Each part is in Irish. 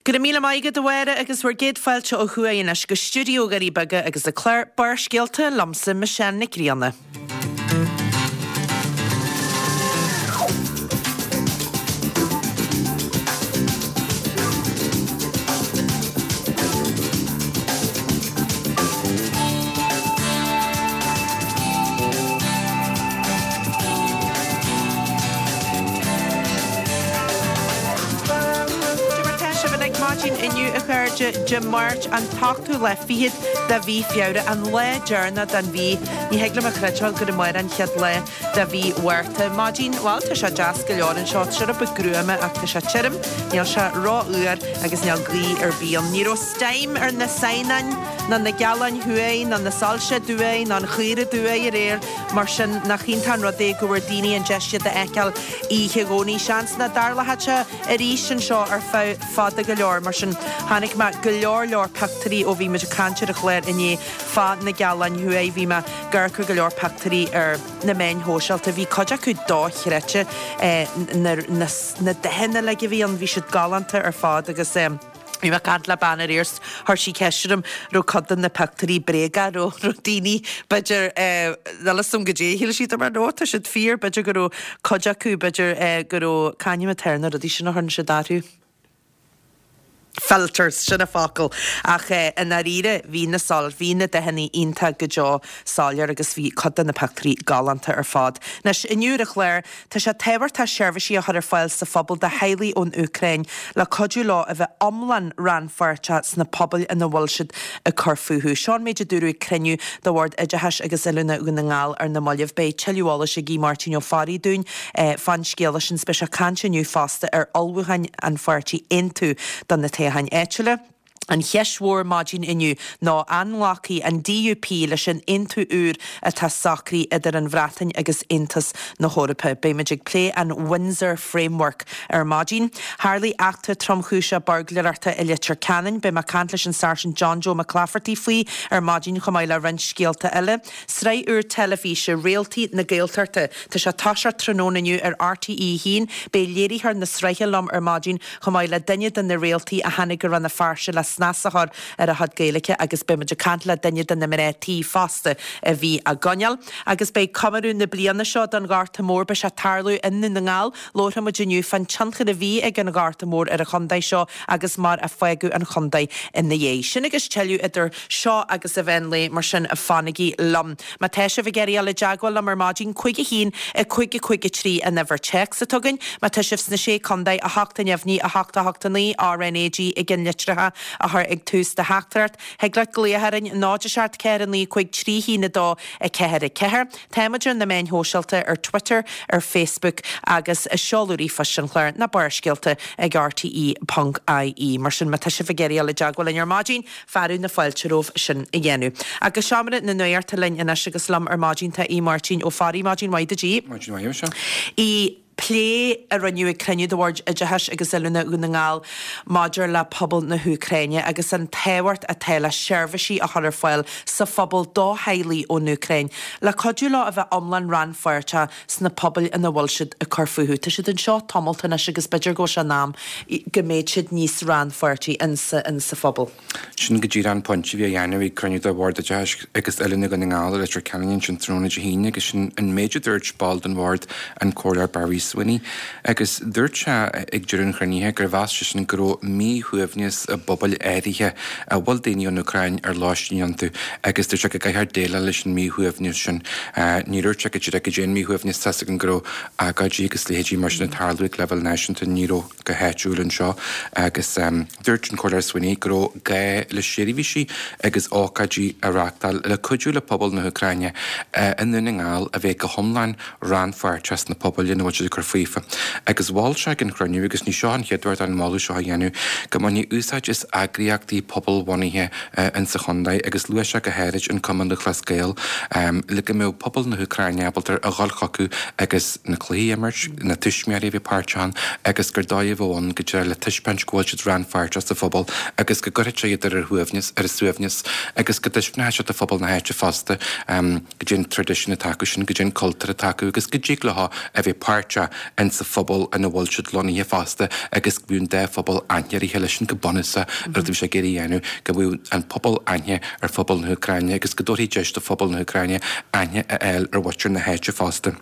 Go raibh míle maith agat a Mháire agus bhur gcéad fáilte ó thuaidh anois go stiúideo Dhoirí Beaga agus an clár Barrscéalta liomsa Michelle Nic Grianna. Cad é mar tá sibh uilig maidin inniu a chairde, Dé Máirt an t-ochtú lá fichead de mhí Feabhra, an lá deireanach den mhí. Ní thig liom a chreidbheáil gur amárach an chéad lá de mhí Mhárta. Maidin, bhuel tá sé deas go leor anseo, tá sé rud beag gruama ach tá sé tirim, níl sé ró-fhuar agus níl gaoth ar bith ann. Ní raibh steam ar na Saighneáin ná na Gealáin Thuaidh ná na Soilse Thuaidh ná an Chaora Thuaidh aréir, mar sin nach iontach an rud é go bhfuair daoine an deis iad a fheiceáil oíche Dhomhnaigh. Seans nach dtarlóidh sé arís anseo ar feadh fada go leor, mar sin chonaic mé go leor leor pictiúirí ó bhí muid ag caint ar an chlár inné fá na Gealáin Thuaidh. Bhí mé ag amharc ar go leor pictiúirí ar na meáin shóisialta. Bhí cuid acu dochreidte, na dathanna uilig a bhí ann, bhí siad galánta ar fad agus bhí mé ag caint le bean aréir 's chuir sí ceist orm raibh cuid de na pictiúirí bréagach, raibh raibh daoine b'fhéidir níl a fhios agam goidé a shíl siad mar no tá siad fíor, b'fhéidir go raibh cuid acu b'fhéidir go raibh, c'ainm atá ar na rudaí sin a chuireann siad orthu? Filters, sin an focal. Ach i ndáiríre, bhí na sol, bhí na dathanna iontach go deo soiléir agus bhí cuid de na pictiúirí galánta ar fad. Anois, inniu ar an chlár, tá sé tábhachtach seirbhísí a chur ar fáil sa phobal do theaghlaigh ón Úcráin le cuidiú leo a bheith iomlán rannpháirteach sna pobail ina bhfuil siad ag cur fúthu. Seo an méid a dúradh ag cruinniú de Bhord Oideachais agus Oiliúna Dhún na nGall ar na mallaibh. Beidh tuilleadh eolais ag Aodh Máirtín Ó Fearraigh dúinn fán scéala sin. Beidh sé ag caint inniu fosta ar ullmhúcháin an pháirtí Aontú do na toghcháin áitiúla. An cheist mhór maidin inniu ná an nglacfaidh an DUP leis an aontú úr atá socraithe idir an Bhreatain agus Aontas na hEorpa. Beimid ag plé an Windsor Framework ar maidin. Tharlaigh eachtra tromchúiseach buirgléireachta i Leitir Ceanainn. Beidh mé ag caint leis an Sáirsint John Joe McClafferty faoi ar maidin chomh maith le roinnt scéalta eile. Sraith úr teilifíse, Réaltaí na Gaeltachta. Tá sé ag toiseacht tráthnóna inniu ar RTÉ 1. Beidh léiritheoir na sraithe liom ar maidin chomh maith le duine de na réaltaí a tháinig go Rann na Feirste le snas a chur ar a chuid Gaeilge agus beidh muid ag caint le duine de na mná tí fosta a bhí á gcoinneáil. Agus beidh comóradh na bliana seo don Ghorta Mór, beidh sé ag tarlú i nDún na nGall. Labharfaidh muid inniu fán tionchar a bhí ag an Ghorta Mór ar an chontae seo agus mar a fágadh an chontae ina dhiaidh. Sin agus tuilleadh idir seo agus an mheán lae, mar sin fanaigí liom. Má tá sibh ag iarraidh dul i dteagmháil liom ar maidin, 5 1 5 5 3 an uimhir téacs atá againn. Má tá sibh sna Sé Contae, 8 neamhní, 8 8 9, RnaG i gceannlitreacha a chur ag tús do theachtaireacht. Thig leat glaoch orainn, 0 7 4 9 5 3 1 2 4 4. Táimid ar na meáin shóisialta, ar Twitter, ar Facebook agus seoladh ríomhphoist an chláir ná Barrscéalta ag rte.ie. Mar sin, má tá sibh ag iarraidh dul i dteagmháil linn ar maidin, fearadh na fáilte romhaibh sin a dhéanamh. Agus Seomra na Nuachta linn anois agus liom ar maidin tá Aodh Máirtín Ó Fearraigh. Maidin mhaith duit Aodh. Maidin mhaith, Michelle. Aodh, plé a rinneadh ag cruinniú de Bhord Oideachais agus Oiliúna Dhún na nGall maidir le pobal na hÚcráine agus an tábhacht atá le seirbhísí a chur ar fáil sa phobal do theaghlaigh ón Úcráin le cuidiú leo a bheith iomlán rannpháirteach sna pobail ina bhfuil siad ag cur fúthu. Tá siad anseo tamalt anois agus b'fhéidir go bhfuil sé in am go mbeidh siad níos rannpháirtí insa insa phobal. Sin go díreach an pointe a bhí á dhéanamh ag cruinniú de Bhord Oideachais agus Oiliúna Dhún na nGall i Leitir Ceanainn ansin tráthnóna Dé hAoine agus sin an méid a dúirt ball den bhord, an Comhairleoir Barry Sweeney. Agus dúirt sé ag deireadh an chruinnithe gur mheas seisean go raibh míshuaimhneas i bpobail áirithe a bhfuil daoine ón Úcráin ar lóistín iontu agus dúirt sé go gcaithfear déileáil leis an míshuaimhneas sin. Níor dhúirt sé go díreach goidé an míshuaimhneas, tá's againn go raibh agóidí agus leithéidí mar sin ag tarlú ag leibhéal náisiúnta, ní raibh go háitiúil anseo agus dúirt an Comhairleoir Sweeney go raibh gá le seirbhísí agus ócáidí a reáchtáil le cuidiú le pobal na hÚcráine i nDún na nGall a bheith go hiomlán rannpháirteach sna pobail ina bhfuil siad ag cur faofa. Agus mhol sé ag an chruinniú, agus ní seo an chéad uair dó an moladh seo a dhéanamh, go mbainfí úsáid as eagraíochtaí pobalbhunaithe insa chontae agus luaigh sé go háirid an Cumann Lúthchleas Gael le go mbeadh pobal na hÚcráine ábalta a dhul chucu agus na cluichí a imirt, na tuismitheoirí a bheith páirteach ann agus gur dóigh a bheadh ann go díreach le taispeáint go bhfuil siad rannpháirteach sa phobal agus go gcuirfeadh sé iad ar a shuaimhneas, ar a suaimhneas agus go dtaispeánfadh sé do phobal na háite fosta. Goidé an traidisiún atá acu sin, goidé an cultúr atá acu agus go dtig leo a bheith páirteach. isteach insa phobal ina bhfuil siad lonnaithe fosta agus go mbeadh an dá phobal aithne ar a chéile. Sin go bunúsach an rud a bhí sé ag iarraidh a dhéanamh, go mbeadh an pobal aithne ar phobal na hÚcráine agus go dtabharfaí deis do phobal na hÚcráine aithne a fháil ar mhuintir na háite fosta.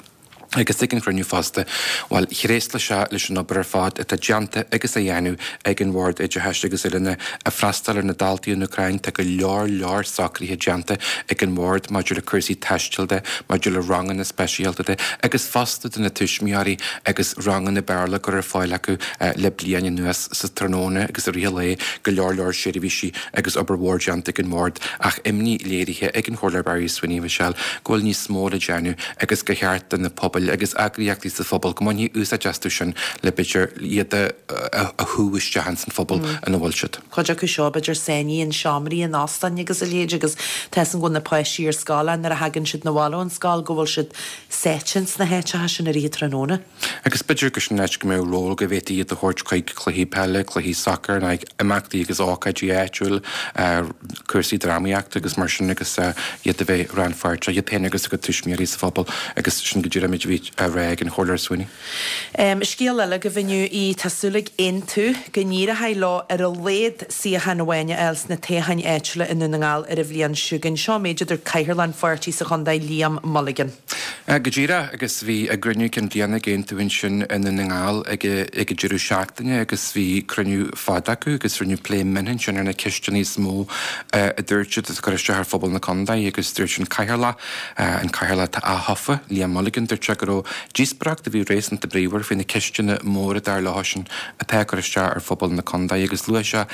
Agus ag an chruinniú fosta, bhuel, thréaslaigh sé leis an obair ar fad atá déanta agus á dhéanamh ag an Bhord Oideachais agus Oiliúna ag freastal ar na daltaí ón Úcráin. Tá go leor leor socruithe déanta ag an mBord maidir le cúrsaí taistil de, maidir le ranganna speisialta de agus fosta do na tuismitheoirí agus ranganna Béarla á gcur ar fáil acu le bliain anuas sa tráthnóna agus i rith an lae, go leor leor seirbhísí agus obair mhór déanta ag an mBord ach imní léirithe ag an Chomhairleoir Barry Sweeney, Michelle, go bhfuil níos mó le déanamh agus gur cheart do na pobail agus eagraíochtaí sa phobal go mbainfí úsáid astu sin le b'fhéidir iad a shú isteach ins an phobal ina bhfuil siad. Cuid acu seo b'fhéidir sáinnithe in seomraí in óstáin agus a leithéid agus tá 'fhios a'm go bhfuil na páistí ar scoil nuair a thagann siad 'na bhaile ón scoil go bhfuil siad sáite ins na háiteacha sin i rith an tráthnóna. Agus b'fhéidir gur sin an áit go mbeadh ról go bhféadfaí iad a thabhairt chuig cluichí peile, cluichí sacair, nó imeachtaí agus ócáidí áitiúil, cúrsaí drámaíochta agus mar sin agus iad a bheith rannpháirteach, iad féin agus a gcuid tuismitheoirí sa phobal agus sin go díreach an méid a bhí á rá ag an Chomhairleoir Sweeney. Scéal eile agaibh inniu í, tá súil ag Aontú go n-éireoidh leo ar a laghad suíochán amháin a fháil sna toghcháin áitiúla i nDún na nGall ar an bhliain seo chugainn. Seo an méid a dúirt Cathaoirleach an pháirtí sa chontae, Liam Mulligan. Go díreach, agus bhí a gcruinniú cinn bliana ag Aontú ansin i nDún na nGall ag ag an deireadh seachtaine agus bhí cruinniú fada acu agus rinneadh plé mion ansin ar na ceisteanna is mó a dúirt siad atá ag cur isteach ar phobal na contae agus dúirt an Cathaoirleach, an Cathaoirleach atá aththofa, Liam Mulligan, dúirt sé go raibh díospóireacht a bhí réasúnta bríomhar faoi na ceisteanna móra dar leosan atá ag cur isteach ar phobal na contae agus luaigh sé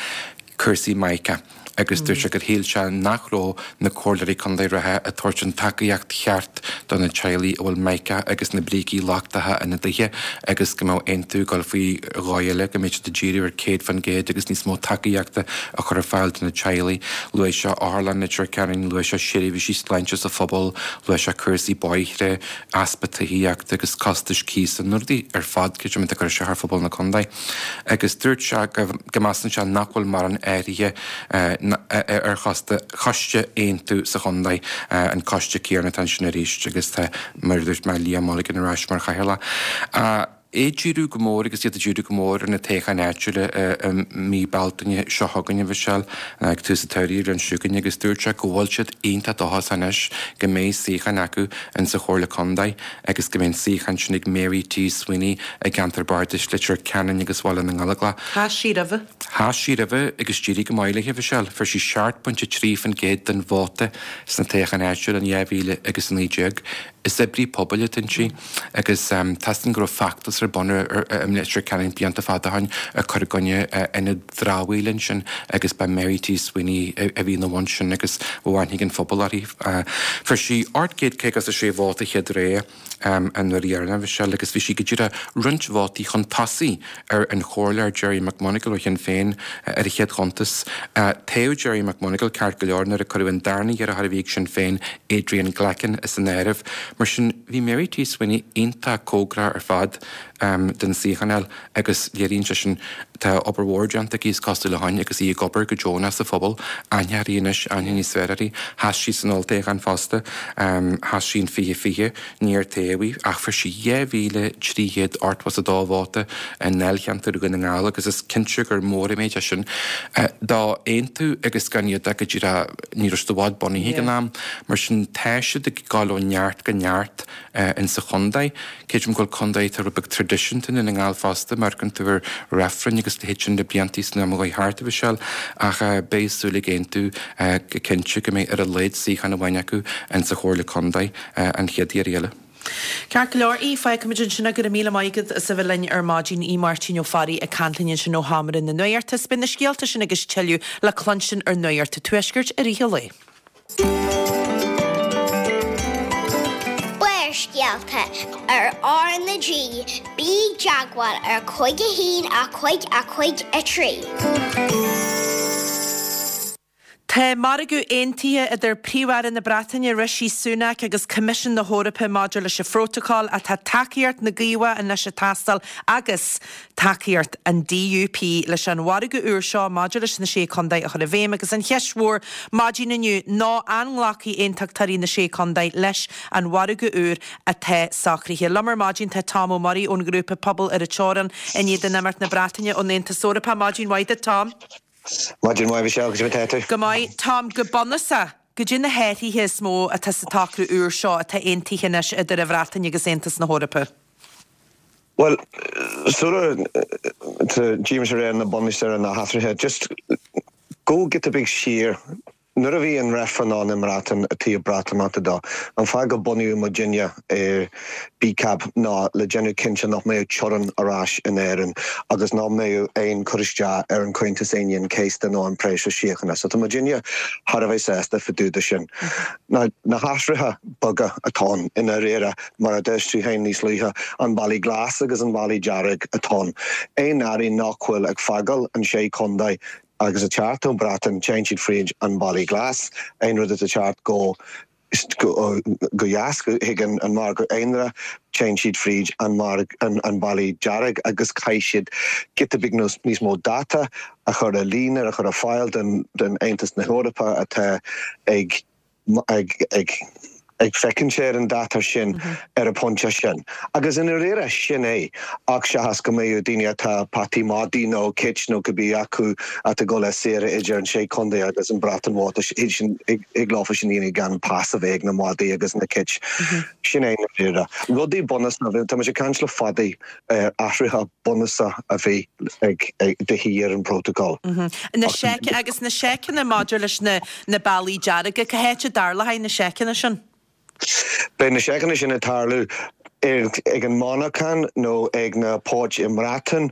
cúrsaí Mica. agus dúirt sé gur shíl sé nach raibh na comhairleoirí contae reatha ag tabhairt an tacaíocht cheart do na teaghlaigh a bhfuil Mica agus na brící lochtacha ina dtithe agus go mbeadh Aontú ag dul faoi dhóigh eile, go mbeadh siad ag díriú ar 100% agus níos mó tacaíochta a chur ar fáil do na teaghlaigh. Luaigh sé Otharlann Leitir Ceanainn, luaigh sé seirbhísí sláinte sa phobal, luaigh sé cúrsaí bóithre, easpa tithíochta agus costais cíosa, na rudaí ar fad, creidim, atá ag cur isteach ar phobal na contae. agus dúirt sé go measann sé nach bhfuil mórán athraithe ar choiste Aontú sa chontae, an coiste céanna atá ansin arís agus tá, mar a dúirt mé, Liam Mulligan ar ais mar chathaoirleach. É ag díriú go mór agus iad ag díriú go mór ar na toghcháin áitiúla i mí Bealtaine seo chugainn, a Mhichelle, ag tús an tsamhraidh an bhliain seo chugainn agus dúirt sé go bhfuil siad iontach dóchasach anois go mbeidh suíochán acu insa Chomhairle Contae. agus go mbeidh an suíochán sin ag Mary T. Sweeney i gceantar bardais Leitir Ceanainn agus Bhaile na nGallóglach. Sheas sí roimhe. Sheas sí roimhe agus d'éirigh go maith léi, a Mhichelle. Fuair sí 7.3% den vóta sna toghcháin áitiúla in 2019. Is oibrí pobail atá inti agus tá 'fhios a'm go raibh feachtas ar bun i Leitir Ceanainn blianta fada ó shin ag cur i gcoinne ionad dramhaíola ansin agus ba Mary T. Sweeney a bhí ina bhun sin agus bhí aithne ag an phobal uirthi. Fuair sí 856 vóta chéad rogha an uair dheireanach, a Mhichelle, agus bhí sí go díreach roinnt vótaí chun tosaigh ar an Chomhairleoir Gerry McMonagle ó Shinn Féin ar an chéad chuntas. Toghadh Gerry McMonagle ceart go leor nuair a cuireadh an darna hiarrthóir a bhí ag Sinn Féin, Adrian Glackin, as an áireamh. Mar sin, bhí Mary T. Sweeney iontach cóngarach ar fad don suíochán a fháil. agus léiríonn sé sin tá obair mhór déanta aici is cosúil ó shin agus í ag obair go deonach sa phobal, aithne uirthi anois, aithne níos fearr uirthi. Sheas sí san olltoghchán fosta, sheas sí in 2020, níor toghadh í ach fuair sí 2,382 vóta i ndáilcheantar Dhún na nGall agus is cinnte gur mór an méid é sin do Aontú agus gan iad ach go díreach, ní raibh siad i bhfad bunaithe ag an am, mar sin tá siad ag gabháil ó neart go neart. insa chontae. Creidim go bhfuil contae atá rud beag traidisiúnta i nDún na nGall fosta, má amharcann tú ar reifrinn agus a leithéid sin le blianta san am a chuaigh thart, a Mhichelle, ach beidh súil ag Aontú go cinnte go mbeidh ar a laghad suíochán amháin acu insa Chomhairle Contae an chéad iarraidh eile. Ceart go leor, Aodh, fágfaimid ansin é. Go raibh míle maith agat as a bheith linn ar maidin. Aodh Máirtín Ó Fearraigh ag caint linn ansin ó Sheomra na Nuachta. Beidh na scéalta sin agus tuilleadh le cluinstin ar Nuacht an Tuaiscirt i rith an lae. Barrscéalta ar R na G, bí i dteagmháil ar 5 1 5 5 3. Tá margadh aontaithe idir Príomh-Aire na Breataine Rishi Sunak agus Coimisiún na hEorpa maidir leis an phrótacal ach tá tacaíocht na gCaomhach anois ag teastáil agus tacaíocht an DUP leis an mhargadh úr seo maidir leis na Sé Chontae a chur i bhfeidhm agus an cheist mhór maidin inniu ná an nglacfaidh aontachtóirí na Sé Chontae leis an mhargadh úr atá socraithe. Liom ar maidin tá Tom Ó Muirí ón ghrúpa Pobal ar an Teorainn in éadan imeacht na Breataine ón Aontas Eorpach. Maidin mhaith duit Tom. Maidin mhaith Michelle, goidé mar atá tú? Go maith. Tom, go bunúsach, goidé na hathruithe is mó atá sa tsocrú úr seo atá aontaithe anois idir an Bhreatain agus Aontas na hEorpa? Bhuel, sula dtéimse ar na bunús ar na hathruithe, just go giota beag siar, Nuair a bhí an reifreann ann i mBreatain i dtaobh Breatimeachta dó, an fáth go bunaíodh muidinne BCAB ná le déanamh cinnte nach mbeadh teorainn ar ais in Éirinn agus nach mbeadh aon cur isteach ar an Comhaontas Aoine an Chéasta nó an próiseas síochána. So tá muidinne thar a bheith sásta fá dtaobh de sin. Now na hathruithe beaga atá ann i ndáiríre, mar a dúirt tú féin níos luaithe, an bealaí glas agus an bealaí dearg atá ann. Aon earraí nach bhfuil ag fágáil an sé chontae agus ag teacht ón Breatain, téann siad fríd an Bealaí Glas, aon rud atá ag teacht go go dheas chuig an margadh aonair, téann siad fríd an an Bealaí Dearg agus caithfidh siad giota beag níos mó data a chur ar líne, a chur ar fáil don Aontas na hEorpa atá ag ag féachaint ar an data sin ar an bpointe sin. Agus i ndáiríre, sin é, ach seachas go mbeadh daoine atá peataí madaí nó cait nó cibé acu atá ag dul ar saoire idir an sé chontae agus an Bhreatain Mhór, thig leofa sin a dhéanamh gan pas a bheith ag na madaí agus na cait. Sin é i ndáiríre. Rudaí bunúsacha, tá muid ag caint le fada ar athruithe bunúsacha a bhí ag de dhíth ar an bprótacal. Na seic, agus na seiceanna maidir leis na na bealaí dearga, cá háit a dtarlóidh na seiceanna sin? Beidh na seiceanna sin ag tarlú ag an monarchan nó ag na poirt i mBreatain.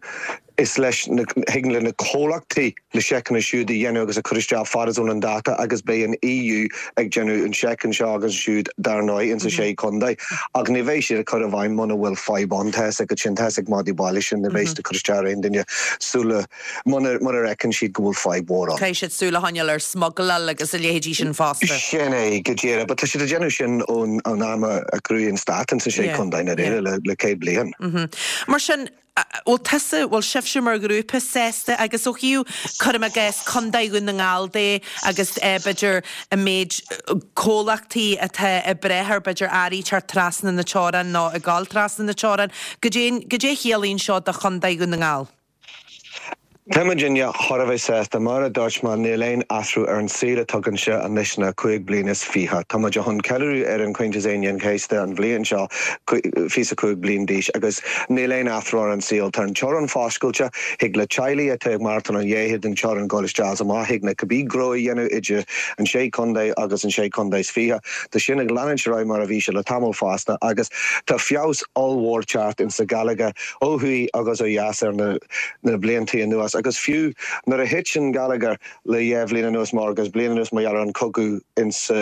Is leis na, thig le na comhlachtaí na seiceanna siúd a dhéanamh agus a chur isteach fad is ón an dáta agus beidh an EU ag déanamh an seic anseo agus ansiúd dar ndóigh insa sé chontae ach ní bheidh siad ag cur i bhfeidhm muna bhfuil fadhb ann. Tá fhios agat sin, tá fhios ag madaí baile sin, ní bheidh siad ag cur isteach ar aon duine sula, muna, mura bhfeiceann siad go bhfuil fadhb mhór ann. Caithfidh siad súil a choinneáil ar smugaláil agus a leithéidí sin fosta. Sin é, go díreach. But tá siad ag déanamh sin ón am a cruthaíodh an stát insa sé chontae, i ndáiríre, le, le 100 bliain. Mar sin, bhfuil tusa, bhfuil sibhse mar ghrúpa sásta agus ó thaobh, cuirim i gcás, Contae Dhún na nGall de agus b'fhéidir an méid comhlachtaí atá ag brath ar b'fhéidir earraí teacht trasna na teorann nó ag gabháil trasna na teorann, goidé, goidé a chiallaíonn seo do Chontae Dhún na nGall? Tá muidinne thar a bheith sásta. Mar a dúirt mé, níl aon athrú ar an saol atá againne anois ná 25 bliain. Tá muid chun ceiliúradh ar an Comhaontas Aoine an Chéasta an bhliain seo, 25 bliain d'aois, agus níl aon athrú ar an saol. Tá an teorainn foscailte, thig le teaghlaigh atá ag maireachtáil an dhá thaobh den teorainn dul isteach is amach, thig le cibé gnó a dhéanamh idir an sé chontae agus an sé chontae is fiche. Tá sin ag leanúint ar aghaidh mar a bhí sé le tamall fosta agus tá feabhas ollmhór teacht insa gheilleagar ó thuaidh agus ó dheas ar na na bliantaí anuas agus fiú nuair a thit an geilleagar le dhá bhliain anuas mar agus bliain anuas mar gheall ar an cogadh insa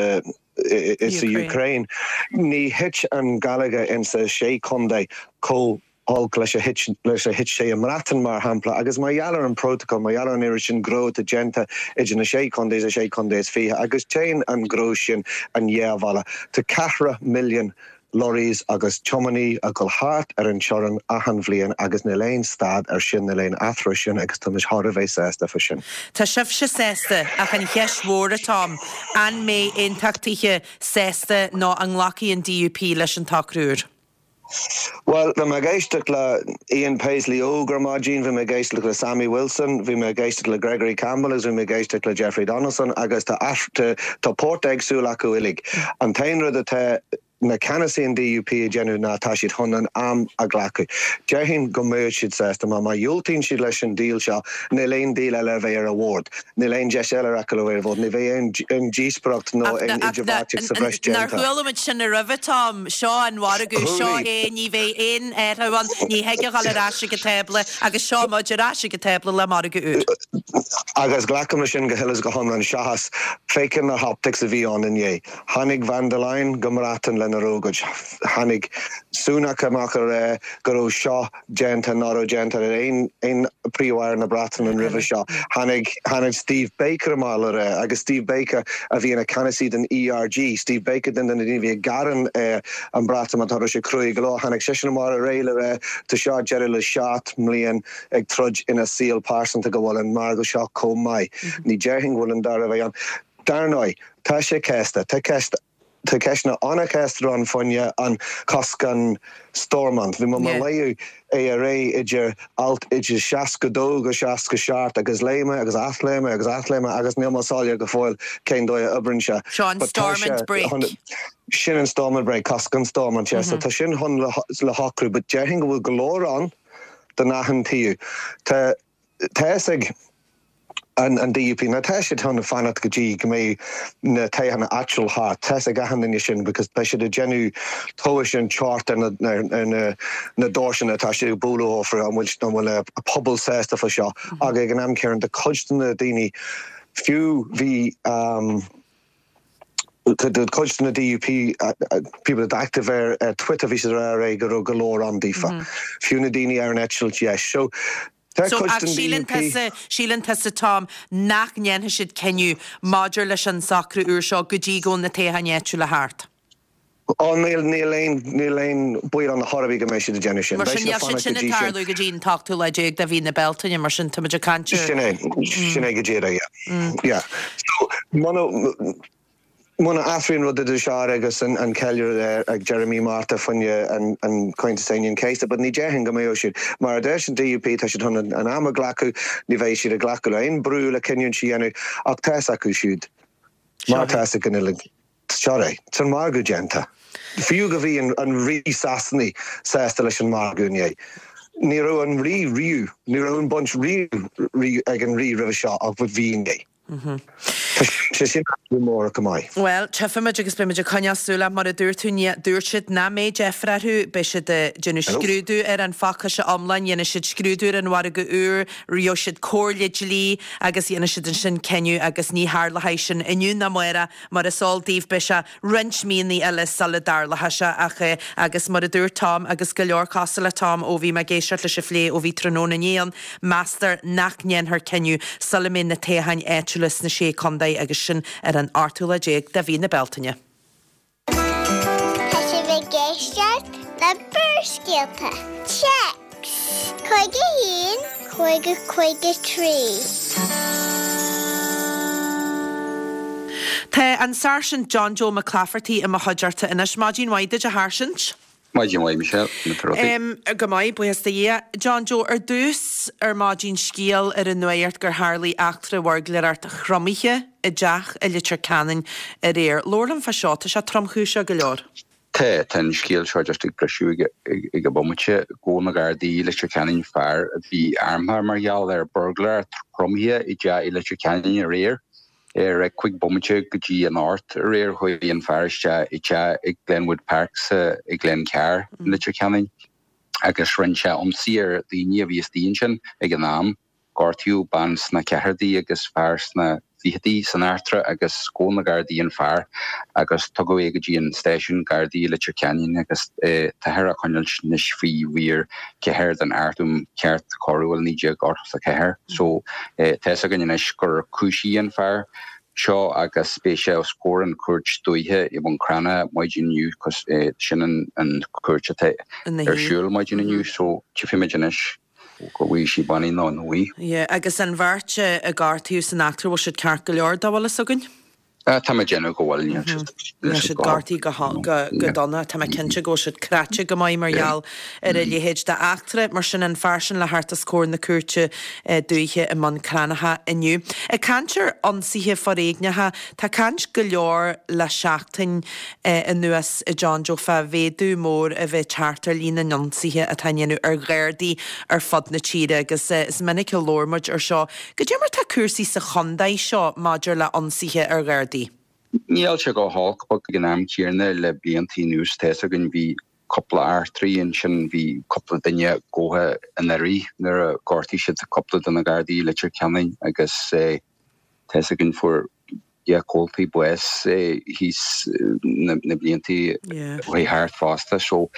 insa Ukraine ní thit an geilleagar insa sé chontae chomh holc leis a thit leis a thit sé i mBreatain mar shampla agus mar gheall ar an prótacal mar gheall ar an oiread sin gnó atá déanta idir na sé chontae is a sé chontae is fiche agus téann an gnó sin an dhá bhealach tá ceathracha milliún lorries agus tiománaí ag dul thart ar an teorainn achan bhliain agus níl aon stad ar sin, níl aon athrú ar sin agus tá muid thar a bheith sásta fá sin. Tá sibhse sásta, ach an cheist mhór atá ann, an mbeidh aontachtaithe sásta nó an nglacfaidh an DUP leis an tsocrú úr? Bhuel, bhí mé ag éisteacht le Ian Paisley óg ar maidin, bhí mé ag éisteacht le Sammy Wilson, bhí mé ag éisteacht le Gregory Campbell agus bhí mé ag éisteacht le Jeffrey Donaldson agus tá tá port éagsúil acu uilig. An t-aon rud atá na ceannasaí an DUP ag déanamh ná tá siad chun an am a ghlacadh. Déarfainn go mbeadh siad sásta mar má dhiúltaíonn siad leis an deal seo níl aon deal eile a bheidh ar an bhord. Níl aon deis eile acu le bheith ar an bhord. Ní bheidh aon díospoireacht nó aon idirbheartaíocht sa bhreis déanta. Nár chuala muid sin roimhe, Tom? Seo an margadh, seo é, ní bheidh aon athrú ann, ní thig a dhul ar ais ag an tábla agus seo muid ar ais ag an tábla le margadh úr. Agus glacaim leis sin go huile is go hiomlán seachas féachaint na hoptics a bhí ann inné. Tháinig Von der Leyen go mBreatain lena. lena raibh agat. Tháinig Sunak amach a rá go raibh seo déanta nach raibh déanta ar aon aon Príomh-Aire na Breataine roimhe seo. Tháinig tháinig Steve Baker amach le rá, agus Steve Baker a bhí ina ceannasaí den ERG, Steve Baker duine de na daoine a bhí ag gearán ar an Breatimeacht, raibh sé cruaidh go leor, tháinig seisean amach aréir le rá tá seo deireadh le 7 mbliain ag troid ina saol pearsanta go bhfuil an margadh seo chomh maith. Ní déarfainn go bhfuil an dara bheidh ann. Dar ndóigh, tá sé casta. Tá ceist, tá ceisteanna an-chasta ann fá choinne an cosc an Stormont. Bhí mé ag léamh é aréir idir alt idir 62-67 agus léigh mé agus athléigh mé agus athléigh mé agus níl mé soiléir go fóill cén dóigh a oibríonn sé. Seo an But tá sé Stormont brake. chun, sin an Stormont brake, cosc an Stormont, yeah. So tá sin chun le shocrú but déarfainn go bhfuil go leor ann don achan taobh. Tá tá fhios ag an DUP, now tá siad chun fanacht go dtí go mbeidh na toghcháin áitiúil thart, tá fhios ag achan duine sin because beidh siad ag déanamh tomhais an teocht ar na ar na na doirseanna atá siad ag bualadh orthu, an bhfuil an bhfuil a pobal sásta fá seo ach ag an am céanna tá cuid de na daoine fiú bhí Cuid de na DUP people that active ar Twitter bhí siad ag rá go raibh go leor ann daofa. Fiú na daoine ar an eitilt dheis. So tá So cuid ach den síleann DUP. tusa, síleann tusa Tom nach ndéanfaidh siad cinneadh maidir leis an socrú úr seo go dtí go bhfuil na toghcháin áitiúla thart? Ó níl, níl aon, níl aon baol ann chor ar bith go mbeidh siad ag déanamh sin. Mar Beidh sin siad ag níl siad fanacht sin go ag dtí sin. tarlú go dtí an t-ochtú lá déag de mhí na Bealtaine, mar sin táimid ag caint ar. Sin é, sin é go díreach, yeah. Yeah. So muna, muna athraíonn rud idir seo agus an, an ceiliúradh ag deireadh mí Márta fá choinne an, an Comhaontas Aoine an Chéasta, but ní déarfainn go mbeadh siad. Mar a deir an DUP, tá siad chun an, an am a ghlacadh, ní bheidh siad ag glacadh le aon brú le cinniúint a dhéanamh, ach tá fhios acu siúd, mar tá fhios ag an uilig. Seo é. Tá an margadh déanta. Fiú go bhí an Rí Sasanaigh sásta leis an margadh inné. Ní raibh an Rí riamh, ní raibh an baint riamh ag an Rí roimhe seo ach bhí inné. Tá sé sin athrú mór go maith. Bhuel, tchífimid agus beimid ag coinneáil súil ach mar a dúirt tú, ní, dúirt siad nach mbeidh deifir orthu, beidh siad ag déanamh scrúdú ar an phacáiste iomlán, dhéanfaidh siad scrúdú ar an mhargadh úr, gheobhaidh siad comhairle dlí agus dhéanfaidh siad ansin cinneadh agus ní tharlóidh sin inniu ná amárach. Mar is eol daoibh beidh sé roinnt míonna eile sula dtarlóidh sé ach agus mar a dúirt Tom agus go leor cosúil le Tom ó bhí mé ag éisteacht leis an phlé ó bhí tráthnóna inné ann, meastar nach ndéanfar cinneadh sula mbeidh na toghcháin áitiúla sna Sé Contae agus sin ar an ochtú lá déag de mhí na Bealtaine. Tá sibh ag éisteacht le Barrscéalta. Téacs 51 50 53. Tá an Sáirsint John Joe Mac Claifertaigh i mo chuideachta anois. Maidin mhaith duit, a Sháirsint. Maidin mhaith, Michelle. Conas tá rudaí? Go maith, buíochas do Dhia. John Joe, ar dtús ar maidin scéal ar an nuacht gur tharlaigh eachtra bhuirgléireacht thromaithe i dteach i Leitir Ceanainn aréir. Labhair liom fá seo, tá sé tromchúiseach go leor. Tá, tá an scéal seo just ag briseadh ag an bomaite. Ghabh na Gardaí i Leitir Ceanainn fear a bhí armtha mar gheall ar buirgléireacht thromaithe i dteach i Leitir Ceanainn aréir. Ar 5 bomaite go dtí an 8 aréir chuaigh an fear isteach i dteach i Glenwood Park sa i Glencar i Leitir Ceanainn agus rinne sé ionsaí ar dhaoine a bhí istigh ansin ag an am. Gortaíodh bean sna ceathrachaidí agus fear sna fichidí san eachtra agus ghabh na Gardaí an fear agus tugadh é go dtí an stáisiún Gardaí i Leitir Ceanainn agus táthar á choinneáilt anois faoi mhír 4 den Acht um Cheart Coiriúil 1984. So tá fhios againn anois gur cúisíodh an fear seo agus beidh sé os comhair an chúirt dúiche i mBun Cranncha maidin inniu cos sin an chúirt atá ar siúl maidin inniu so tchífimid anois go bhfaighidh sé bannaí nó nach bhfaighidh. Yeah, agus an bheirt a gortaíodh san eachtra bhfuil siad ceart go leor dá bhfuil fhios againn? Tá mé ag déanamh go bhfuil, níl siad Níl siad gortaithe go dona, tá mé cinnte go bhfuil siad cráite go maith mar gheall ar a leithéid d'eachtra. Mar sin, an fear sin le theacht os comhair na cúirte dúiche i mBun Cranncha inniu. Ag caint ar ionsaithe foréigneacha, tá caint go leor le seachtain anuas a John Joe fá mhéadú mór a bheith ag teacht ar líon na n-ionsaithe atá á ndéanamh ar Ghardaí ar fud na tíre agus is minic a labhair muid ar seo. Goidé mar tá cúrsaí sa chontae seo maidir le ionsaithe ar Ghardaí? Níl sé go holc but ag an am céanna le blianta anuas tá fhios againn bhí cúpla eachtraí ansin bhí cúpla duine gabhtha anuraidh nuair a ghortaigh siad cúpla de na Gardaí i Leitir Ceanainn agus tá fhios againn fuair. Yeah comhaltaí bás thíos na blianta a chuaigh thart fosta. So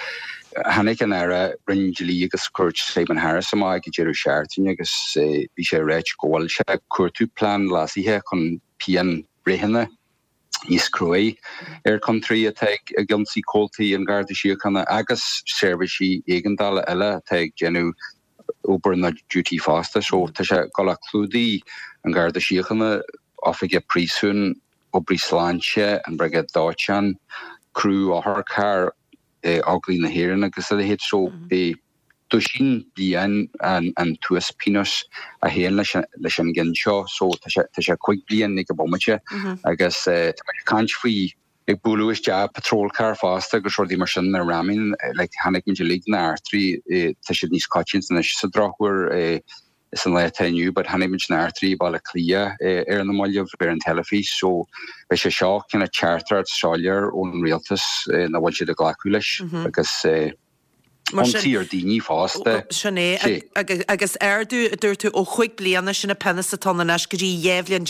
tháinig an Aire Roinn Dlí agus Cúirt Simon Harris amach ag an deireadh seachtaine agus bhí sé ag ráit go bhfuil sé ag cuartú plean leasaithe chun pianbhreitheanna níos cruaí ar chiontóirí atá ag ionsaí comhaltaí an Gharda Síochána agus seirbhísí éigeandála eile atá ag déanamh obair nó duty fosta. So tá sé ag dul a clúdaigh an Garda Síochána, oifigigh príosúin, oibrí sláinte, an Briogáid Dóiteáin, criú otharchairr, Óglaigh na hÉireann agus a leithéid. So beidh duisín bliain an t-uaspionós a théann leis an gcionn seo. So tá sé tá sé 5 bliain ag an bomaite agus tá muid ag caint faoi ag bualadh isteach patrol car fosta agus rudaí mar sin na ramming like chonaic muid uilig na heachtraí tá siad níos coitianta anois sa drochuair sa lá atá inniu but chonaic muid na heachtraí i Baile Átha Cliath ar na mallaibh ar an teilifís so beidh sé seo kind of teachtaireacht soiléir ón rialtas nach bhfuil siad ag glacadh leis agus ionsaí ar daoine fosta. Sin é agus ardú a dúirt tú ó chúig bliana sin an pionós atá ann anois go dtí 12 bhliain.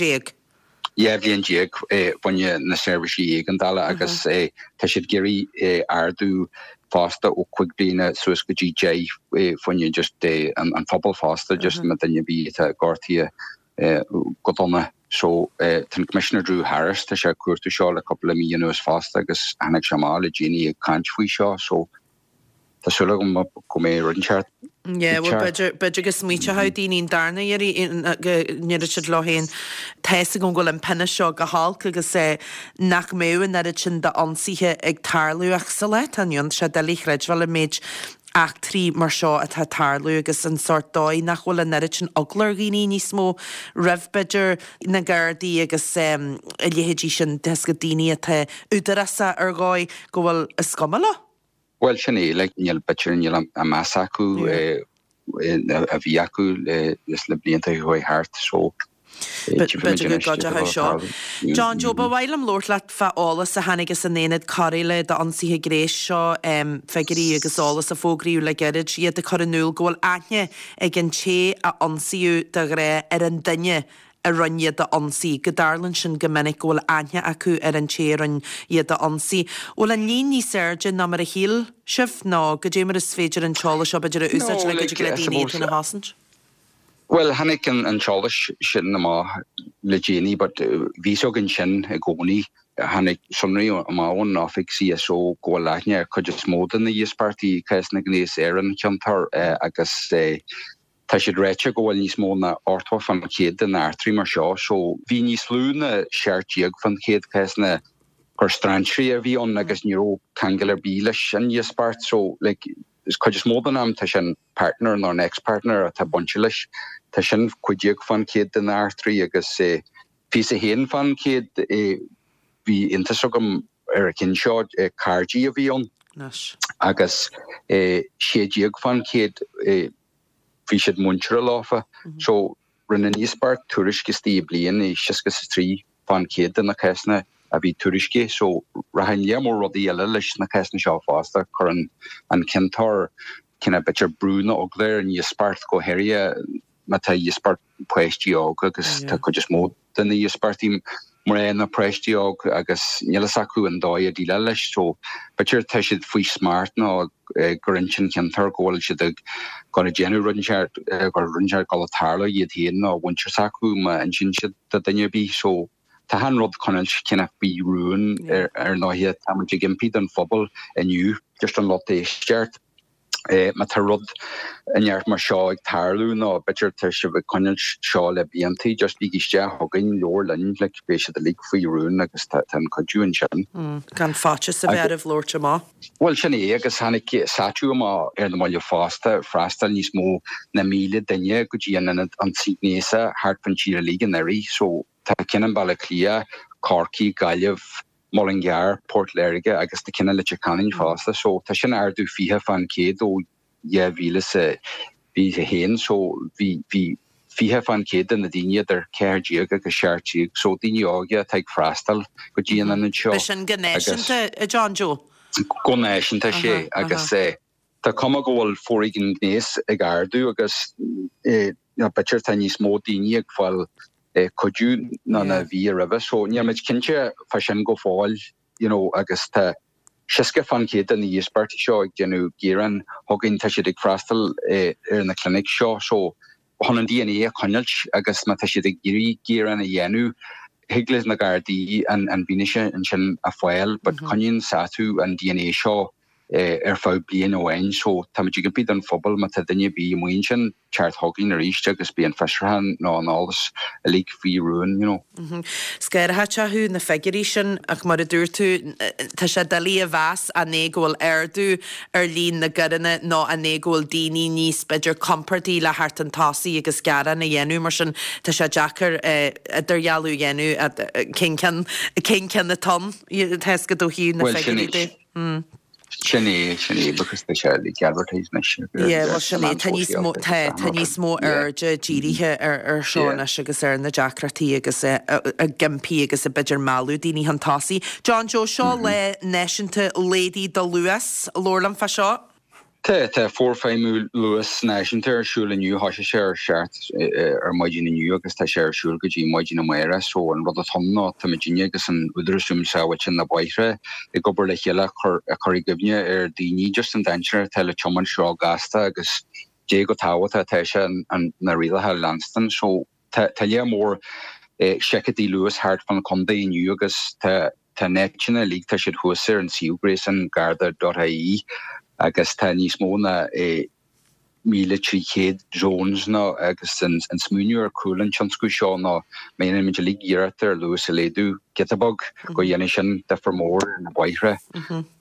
12 bhliain fá choinne na seirbhísí éigeandála agus tá siad ag iarraidh ardú fosta ó 5 bliana suas go dtí 10 fá choinne just an phobal fosta just má duine ar bith atá gortaithe go dona. So tá an Commissioner Drew Harris tá sé ag cuartú seo le cúpla mí anuas fosta agus tháinig sé amach le déanaí ag caint faoi seo so Tá súil agam go mbeidh rud inteacht Yeah, well, b'fhéidir, b'fhéidir go smaointeoidh daoine an darna iarraidh go ndéarfaidh siad leo féin, tá fhios agam go bhfuil an pionós seo go holc agus nach mbeadh an oiread sin d'ionsaithe ag tarlú ach sa lá atá inniu ann, tá sé doiligh a chreidbheáil an méid eachtraí mar seo atá ag tarlú agus an sórt dóigh nach bhfuil an oiread sin eagla ar dhaoine níos mó roimh b'fhéidir na Gardaí agus a leithéidí sin, de dheasca daoine atá údarásach ar dhóigh go bhfuil is cuma leo. Bhuel, sin é, like, níl, b'fhéidir, níl an meas acu a bhí acu leis na blianta a chuaigh thart, so B'fhéidir go gcuideoidh seo. John Joe, ba mhaith liom labhairt leat fá eolas a tháinig as an Aonad Cóireála d'Ionsaithe Gnéis seo, figiúirí agus eolas a fógraíodh le gairid, iad ag cur in iúl go bhfuil aithne ag an té a ionsaíodh de ghnáth ar an duine a rinne iad a ionsaí, go dtarlaíonn sin go minic, go bhfuil aithne acu ar an té a rinne iad a ionsaí. Bhfuil an líon níos airde ná mar a shíl sibh, nó goidé mar is féidir an t-eolas seo b'fhéidir a úsáid le go dtig le daoine iad féin a chosaint? Bhuel, tháinig an t-eolas sin amach le déanaí but bhí fhios againn sin i gcónaí. Tháinig sonraí amach ón oifig CSO go bhfuil aithne ar chuid is mó de na híospartaigh i cásanna gnéas ar an chiontóir agus Tá siad ráite go bhfuil níos mó ná 80% de na eachtraí mar seo so bhí níos lú ná 17% cásanna gur strainséirí a bhí ann agus ní raibh ceangal ar bith leis an íospairt so like is cuid is mó den am tá sé an partner nó an ex-partner atá bainte leis. Tá sin 15% de na eachtraí agus 21% bhí iontas agam ar an cheann seo cairdí a bhí ann agus 16% bhí siad muinteartha leofa. So, rinne an íospairt tuairisc istigh i bliain i 63% de na cásanna a bhí tuairiscithe. So, rachainn lear mór rudaí eile leis na cásanna seo fosta. Cuireann an ciontóir cineál b'fhéidir brú nó eagla ar an íospairt go háirithe má tá íospairt páistí óga agus tá cuid is mó de na híospartaigh mná ná páistí óg agus níl fhios acu an dóigh a déileáil leis so b'fhéidir tá siad faoi smacht nó gur inse an ciontóir go bhfuil siad ag gabháil a déanamh rud inteacht gur rud inteacht ag gabháil a tarlú iad féin nó mhuintir s'acu má insíonn siad do duine ar bith so tá an rud coinneáilt cineál faoi rún ar ndóighe tá muid ag impí don phobal inniu just an lucht éisteachta. Má tá rud inteacht mar seo ag tarlú nó b'fhéidir tá sibh ag coinneáilt seo le bliantaí, just bígí isteach chugainn, labhair linn, like, beidh siad uilig faoi rún agus tá an cuidiú ansin. Gan faitíos a bheith oraibh labhairt amach. Bhuel, sin é, agus tháinig SATU amach ar na mallaibh fosta, freastail níos mó ná 1,000 duine go dtí an ionad ionsaí gnéasach thart fán tír uilig anuraidh, so tá ceann i mBaile Átha Cliath, Corcaigh, Gaillimh, Mullingar, Port Láirge agus tá ceann i Leitir Ceanainn fosta. So tá sin ardú 20% ó 2021. So bhí bhí 20% de na daoine idir 14 agus 17, so daoine óga atá ag freastal go dtí an ionad seo. B'shin go náisiúnta, a John Joe? Go náisiúnta, sea. Agus tá cuma go bhfuil foréigean gnéas ag ardú agus b'fhéidir tá níos mó daoine ag fáil. Cuidiú ná na bhí roimhe so níl muid cinnte fá sin go fóill you know agus tá 60% de na híospartaigh seo ag déanamh gearán chugainn tá siad ag freastal ar na clinic seo so chun an DNA a choinneáilt agus má tá siad ag iarraidh gearán a dhéanamh thig leis na Gardaí an bhfianaise ansin a fháil but coinníonn SATU an DNA seo ar feadh bliain amháin so táimid ag impí don phobal má tá duine ar bith amuigh ansin teacht chugainn arís agus beidh an fiosrúchán nó an eolas uilig faoi rún you know. Scanraitheach thú na figiúirí sin ach mar a dúirt tú tá sé doiligh a mheas an é go bhfuil ardú ar líon na gcoireanna nó an é go bhfuil daoine níos b'fhéidir compordaí le theacht chun tosaigh agus gearán a dhéanamh mar sin tá sé deacair idirdhealú a dhéanamh cén ceann cén ceann atá ann tá a fhios agat ó thaobh na figiúirí de. Sin é, sin é, because tá sé like advertised anois. Yeah, bhuel sin é, tá níos mó, tá, tá níos mó airde dírithe ar, ar seo anois agus ar na deacrachtaí agus ag impí agus ag b'fhéidir mealladh daoine chun tosaigh. John Joe, seo lá náisiúnta Laghdaigh do Luas, labhair liom fá seo. Tá, tá forfheidhmiú luas náisiúnta ar siúl inniu, thosaigh sé ar 7 ar maidin inniu agus tá sé ar siúl go dtí maidin amárach so an rud atá ann ná tá muidinne agus an Údarás um Sábháilteacht na Bóithre ag obair le chéile a chur i gcuimhne ar daoine just an dainséar atá le tiomáint seo gasta agus dé chomh tábhachtach atá sé na rialacha a leanstan so tá tá lear mór seiceálacha luas thart fán chontae inniu agus tá Tá na háiteanna uilig, tá siad thuas ar an suíomh gréasáin garda.ie agus tá níos mó ná 1,300 zones nó agus an smaoineamh ar chúl an tionscnamh seo ná má dhéanann muid uilig iarracht ar luas a laghdú giota beag go dhéanfaidh sin difear mór ar na bóithre.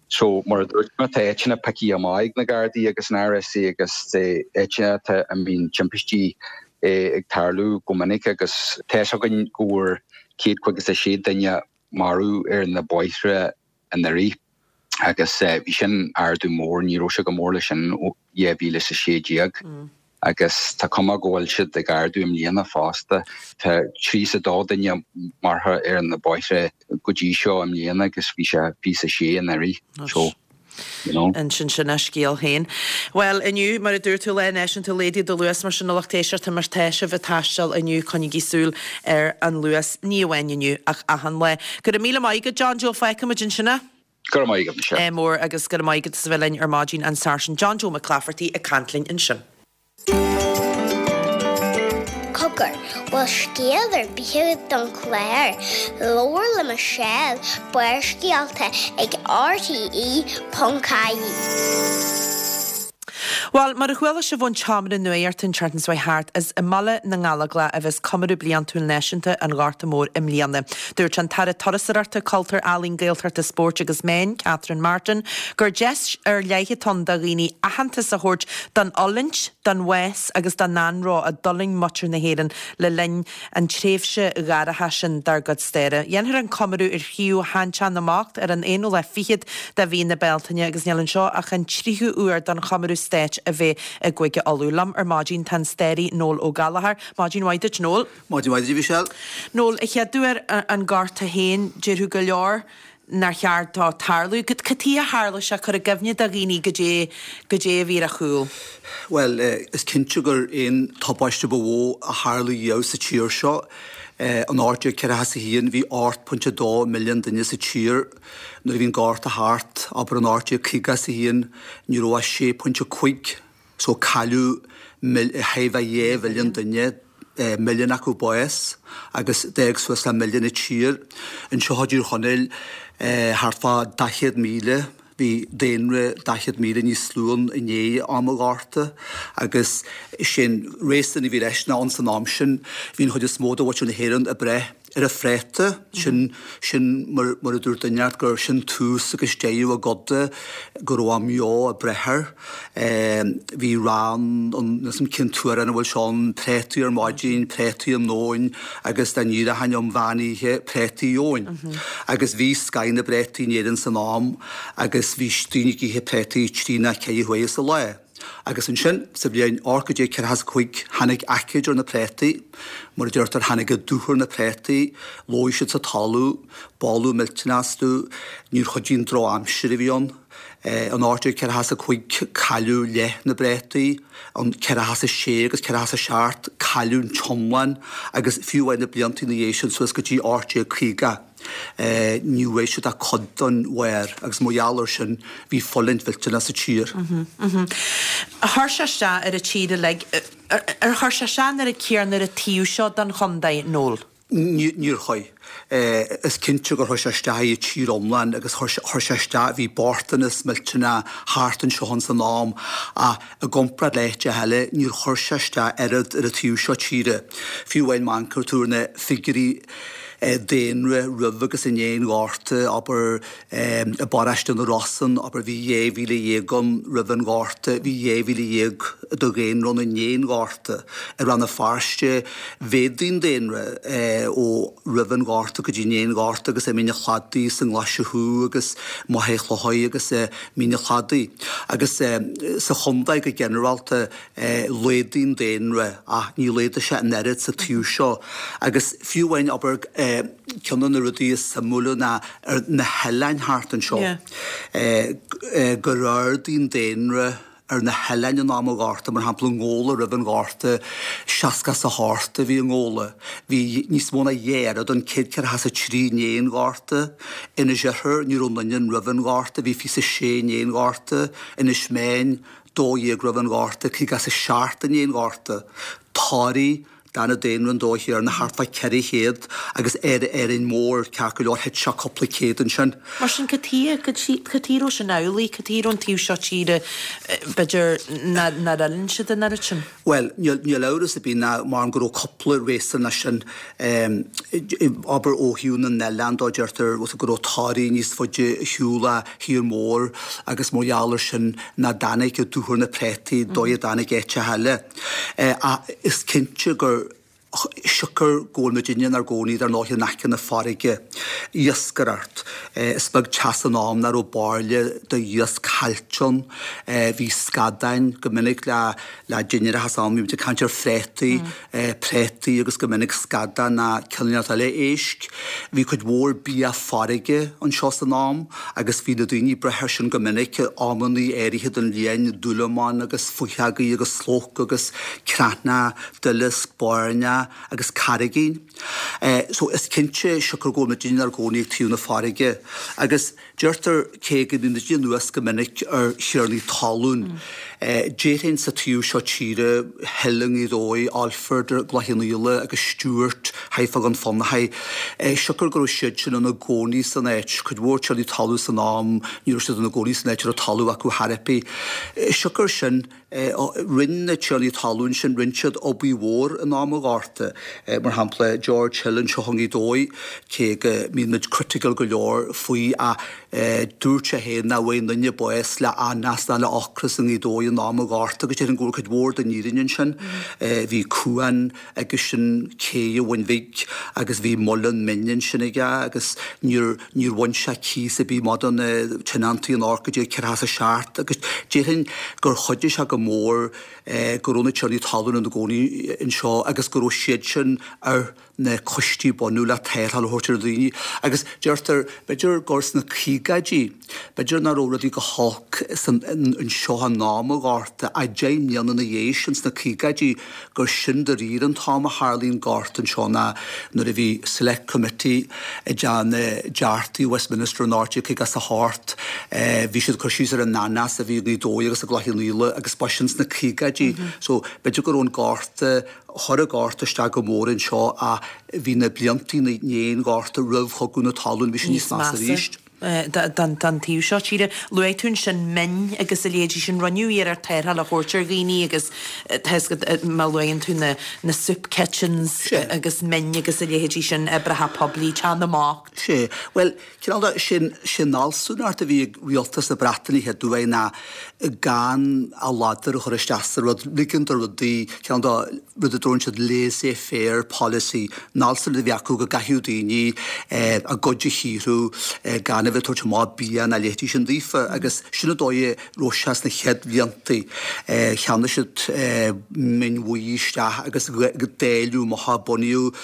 So mar a dúirt mé tá áiteanna pioctha amach ag na Gardaí agus an RSA agus áiteanna atá a mbíonn timpistí ag tarlú go minic agus tá fhios againn go bhfuair 156 duine marbh ar na bóithre anuraidh agus bhí sin ardú mór, ní raibh sé chomh mór leis sin ó 2016 agus tá cuma go bhfuil siad ag ardú i mbliana fosta. Tá 32 duine marbh ar na bóithre go dtí seo i mbliana agus bhí sé 26 anuraidh. So. You know. Ansin sin a scéal féin. Bhuel, inniu, mar a dúirt tú, Lá Náisiúnta Laghdaigh do Luas, mar sin a lucht éisteachta, má tá sibh ag taisteal inniu, coinnígí súil ar an luas, ní amháin inniu, ach achan lá. Go raibh míle maith agat, John Joe, feicfidh muid ansin é. Go raibh maith agat, Michelle. Ádh mór agus go raibh maith agat as a bheith linn ar maidin, an Sáirsint John Joe Mac Laifeartaigh ag caint linn ansin. Cogar, bhfuil scéal ar bith agat don chlár? Labhair le Michelle, Barrscéalta ag RTE.ie. Bhuel, mar a chuala sibh ón tseomra nuachta an tseachtain seo thart, is i mBaile na nGallóglach a bheas Comóradh Bliantúil Náisiúnta an Ghorta Mhóir i mbliana. Dúirt an tAire Turasóireachta, Cultúir, Ealaíon, Gaeltachta, Spóirt agus Meán, Catherine Martin, gur deis ar leith atá ann do dhaoine aitheantas a thabhairt don fhulaingt, don bhás agus don anró a d'fhulaing muintir na hÉireann le linn an tréimhse dhoirche sin dár gcuid staire. Dhéanfar an comóradh ar shuíomh Sheanteach na mBocht ar an aonú lá fichead de mhí na Bealtaine agus níl anseo ach an tríú huair don chomóradh stáit a bheith i gCúige Uladh. Liom ar maidin tá an staraí Noel Ó Gallchóir. Maidin mhaith duit Noel. Maidin mhaith duit a Mhichelle. Noel, a chéaduair an Gorta féin, déarfadh go leor nár cheart dó tarlú. Cad chuige a tharla sé? Cuir i gcuimhne do dhaoine goidé, goidé a bhí ar a chúl. Bhuel, is cinnte gur é an tubaiste ba mhó a tharla riamh sa tír seo. In 1841 bhí 8.2 milliún duine sa tír. Nuair a bhí an Gorta thart, abair in 1851, ní raibh ach 6.5. So cailleadh chóir a bheith 2 mhilliún duine, milliún acu bás agus d'fhág suas le milliún an tír. Anseo i dTír Chonaill thart fá 40,000, bhí daonra 40,000 níos lú ann i ndiaidh am an Ghorta agus sé an réasún a bhí leis ná ins an am sin bhí an chuid is mó de mhuintir na hÉireann ag breith ar an phréata, sin, sin mar, mar a dúirt duine inteacht gur sin tús agus deireadh a gcoda, go raibh a mbeo ag breith air. Bhí rann ann, níl 's a'm cén t-amhrán a bhfuil sé ann, préataí ar maidin, préataí um nóin agus dá n-éireochainn um mheán oíche, préataí gheobhainn. Agus bhí scath na bpréataí in Éirinn san am agus bhí daoine ag ithe préataí trí nó ceithre huaire sa lá. Agus ansin, sa bhliain 1845, tháinig aicíd ar na préataí. Mar a deirtear, tháinig an dúch ar na préataí, lóigh siad sa talamh, boladh millteanach astu, níor chuidigh an drochaimsir a bhí ann. In 1845 cailleadh leath na bpréataí, in 46 agus 47 cailleadh an t-iomlán agus fiú amháin na blianta ina dhiaidh sin suas go dtí 1850 ní bhfuair siad ach cuid den bharr agus mar gheall air sin bhí fulaingt mhillteanach sa tír. Chuir sé isteach ar an tír uilig. Ar chuir sé isteach an oiread céanna ar an taobh seo den chontae, Noel? Níor chuir. Is cinnte gur chuir sé isteach ar an tír iomlán agus chuir sé isteach, bhí bochtanas millteanach thart anseo ins an am ach i gcomparáid le háiteacha eile níor chuir sé isteach oiread ar an taobh seo tíre. Fiú amháin má amharcann tú ar na figiúirí daonra roimh agus i ndiaidh an Ghorta, abair I bparóiste na Rosann, abair, bhí 12,000 ann roimh an Ghorta, bhí 12,000 de dhaonra ann i ndiaidh an Ghorta. I Rann na Feirste, mhéadaigh an daonra ó roimh an Ghorta go dtí i ndiaidh an Ghorta agus i Mín an Chladaigh, sa nGlaise Thuaidh agus Machaire Chlochair agus i Mín an Chladaigh. Agus sa chontae go ginearálta, Laghdaigh an daonra ach ní laghdaigh sé an oiread sa taobh seo agus fiú amháin, abair, ceann de na rudaí is suimiúla ná ar na hoileáin thart anseo, gur ardaigh an daonra ar na hoileáin in am an Ghorta, mar shampla i nGabhla roimh an Ghorta, 68 a bhí i nGabhla, bhí níos mó ná dhá oiread ann, 143 i ndiaidh an Ghorta, Inis Oirthir, ní raibh aon duine ann roimh an Ghorta, bhí 26 i ndiaidh an Ghorta, Inis Meáin, 12 roimh an Ghorta, 57 i ndiaidh an Ghorta. Toraigh, d'fhan an daonra an dóigh chéanna, thart fá 400 agus ar Árainn Mhór, ceart go leor, thit sé cúpla céad ansin. Mar sin, cad chuige, cad chuige a raibh sin amhlaidh, cad chuige a raibh an taobh seo tíre, b'fhéidir, nár fhulaing siad an oiread sin? Bhuel, níl amhras ar bith ná mar go raibh cúpla réasún leis sin. Abair ó thaobh na n-oileán dó, deirtear go raibh Toraigh níos faide ar shiúl ó thír mór agus mar gheall air sin nach dtáinig i dtuathar na préataí dóigh a dtáinig áiteacha eile. Ach is cinnte gur siocair go bhfuil muidinne inár gcónaí dar ndóigh in aice na farraige, iascaireacht. Is beag teach san am nach raibh bairille de iasc caillte ann. Bhí scadáin go minic le le dinnéar as am, bhí muid ag caint ar phréataí, préataí agus go minic scadán ná cineál eile éisc. Bhí cuid mhór bia farraige anseo san am agus bhí na daoine ag brath air sin go minic, amannaí áirithe den bhliain, dúlamán agus fuitheogaí agus slóc agus creathnach, duileasc, bairneach agus carraigín. So is cinnte, siocair go bhfuil muidinne inár gcónaí ag taobh na farraige agus, Deirtear, cé go mbíonn muid anuas go minic ar thiarnaí talún, déarfainn sa taobh seo tíre, Hill i nGaoth Dobhair, Alford i gCloich Cheann Fhaola agus Stewart thart fá Dhún Fionnachaidh, siocair go raibh siad sin ina gcónaí san áit, cuid mhór tiarnaí talún san am, ní raibh siad ina gcónaí san áit a raibh talamh acu chor ar bith. Siocair sin, Rinne na tiarnaí talún sin, rinne siad obair mhór in am an Ghorta. Mar shampla, George Hill anseo i nGaoth Dobhair, cé go mbíonn muid critical go leor faoi ach dúirt sé féin nach bhfuair aon duine bás le hanas ná le ocras i nGaoth Dobhair in am an Ghorta agus déarfainn go bhfuil cuid mhór den fhírinne ansin. Bhí cuan aigesean cé an Bhun Bhig agus bhí muileann mine ansin aige agus níor níor bhain sé cíos ar bith amach do na tionóntaí in 1847 agus déarfainn gur chuidigh sé go mór go raibh na tiarnaí talún ina gcónaí anseo agus go raibh siad sin ar na coistí bunaidh le tarrtháil a thabhairt ar dhaoine agus deirtear b'fhéidir gur sna caogaidí B'fhéidir nach raibh rudaí go holc san anseo in am an Ghorta ach 10 mbliana ina dhiaidh sin sna caogaidí gur sin dáiríre an t-am a tharlaigh an Gorta anseo ná nuair a bhí Select Committee ag déanamh dearchtaí Westminster in 1858 bhí siad ag cur síos ar an anas a bhí i nGaoth Dobhair agus i gCloich Cheann Fhaola agus ba sin sna caogaidí so b'fhéidir go raibh an Gorta chuir an Gorta isteach go mór anseo ach bhí na blianta i ndiaidh an Ghorta roimh Chogadh na Talún bhí sé níos measa arís. don taobh seo tíre. Luaigh tú ansin min agus a leithéidí sin. Rinneadh iarracht tarrtháil a thabhairt ar dhaoine agus tá 'fhios agat má luann tú na na soup kitchens agus min agus a leithéidí sin, oibreacha poiblí, Teach na mBocht. Sea. Bhuel, cineál de, sin, sin an fhealsúnacht a bhí ag rialtas na Breataine chéad uair ná gan a ladar a chur isteach sa rud, ligean do rudaí, cineál de, rud a dtabharann siad laissez faire policy, an fhealsúnacht a bhí acu go gcaithfeadh daoine a gcuid a shaothrú gan a bheith. a bheith ag tabhairt amach bia ná a leithéidí sin daofa agus sin an dóigh a raibh sé sna chéad bhlianta. Cheannaigh siad min bhuí isteach agus dáileadh amach é, bunaíodh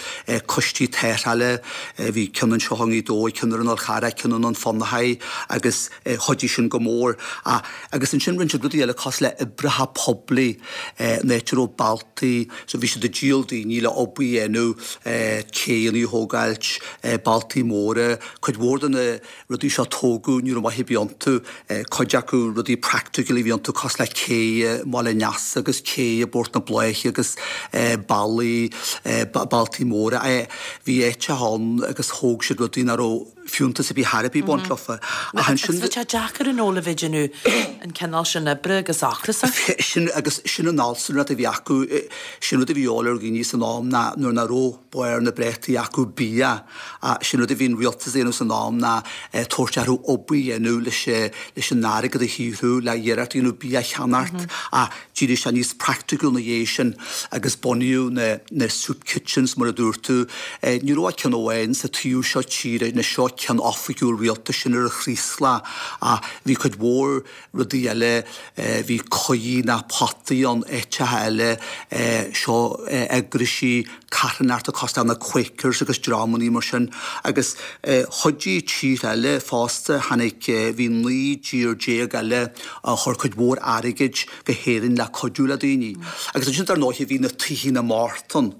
coistí tarrthála, bhí ceann anseo i nGaoth Dobhair, ceann ar an Fhál Charrach, ceann i nDún Fionnachaidh agus chuidigh sin go mór. Agus ansin rinne siad rudaí eile cosúil le oibreacha poiblí, an áit a raibh bealtaí, so bhí siad ag díol daoine le obair a dhéanamh, céanna a thógáilt, bealtaí móra, cuid mhór de na rudaí seo a tógadh, ní raibh maith ar bith iontu, cuid acu rudaí practical a bhí iontu cosúil le cé i mBaile an Easa agus cé i bPort na Bláiche agus bealaí, bealtaí móra. Bhí áiteacha ann agus thóg siad rudaí nach raibh fiúntas ar bith thar ar bith ag baint leofa. Ach ansin. Agus bhí sé deacair an ól a bheith ag déanamh an cineál sin oibre agus ocrasach. Sin agus sin an alt, sin rud a bhí acu, sin rud a bhí de dhíobháil ar dhaoine san am ná nuair nach raibh barr na bpréataí acu bia. Sin rud a bhí an rialtas a dhéanamh san am ná tabhairt orthu obair a dhéanamh leis leis an airgead a shaothrú le iarracht a dhéanamh bia a cheannacht ach d'éirigh sé níos praiticiúil ina dhiaidh sin agus bunaíodh na na soup kitchens mar a dúirt tú. Ní raibh ach ceann amháin sa taobh seo tíre, anois seo ceann oifigiúil rialtais sin ar an Chraoslach ach bhí cuid mhór rudaí eile, bhí coirí ná potaí ann áiteacha eile, seo eagraisí carthanachta cosúil le na Quakers agus dreamannaí mar sin agus chuidigh tíortha eile fosta, tháinig, bhí 19 dtír eile a chuir cuid mhór airgid go hÉirinn le cuidiú le daoine. Agus ansin dar ndóighe bhí na Tithe na mBocht ann.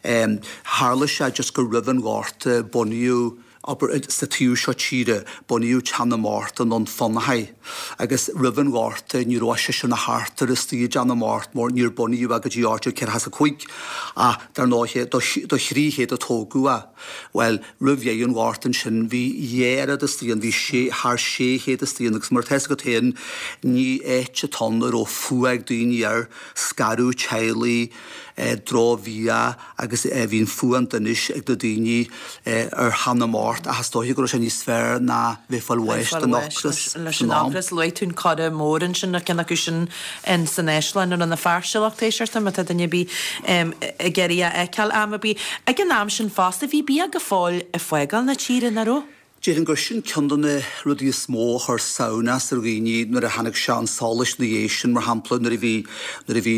Tharla sé just gur roimh an Ghorta bunaíodh, abair, sa taobh seo tíre, bunaíodh Teach na mBocht i nDún Fionnachaidh agus roimh an Ghorta ní raibh ach seisear ná seachtar istigh i dTeach na mBocht mar níor bunaíodh é go dtí 1845 ach dar ndóighe do 300 a tógadh é. Bhuel, roimh dheireadh an Ghorta ansin bhí dhá oiread istigh ann, bhí sé, thar 600 istigh ann agus mar atá fhios agat féin ní áit atá ann a raibh fuath ag daoine air, scaradh teaghlaigh, drochbhia agus bhí an fuath an donais ag na daoine ar Theach na mBocht ach is dóiche go raibh sé níos fearr ná bheith ag fáil bháis den ocras leis an ocras. Luaigh tú an Coire Mór ansin, ar ceann acu sin in san Áislann i Rann na Feirste lucht éisteachta má tá duine ar bith ag iarraidh a fheiceáil am ar bith. Ag an am sin fosta bhí bia go fóill ag fágáil na tíre, nach raibh? Déarfainn gur sin ceann de na rudaí is mó a chuir samhnas ar dhaoine nuair a tháinig sé chun solais ina dhiaidh sin, mar shampla nuair a bhí, nuair a bhí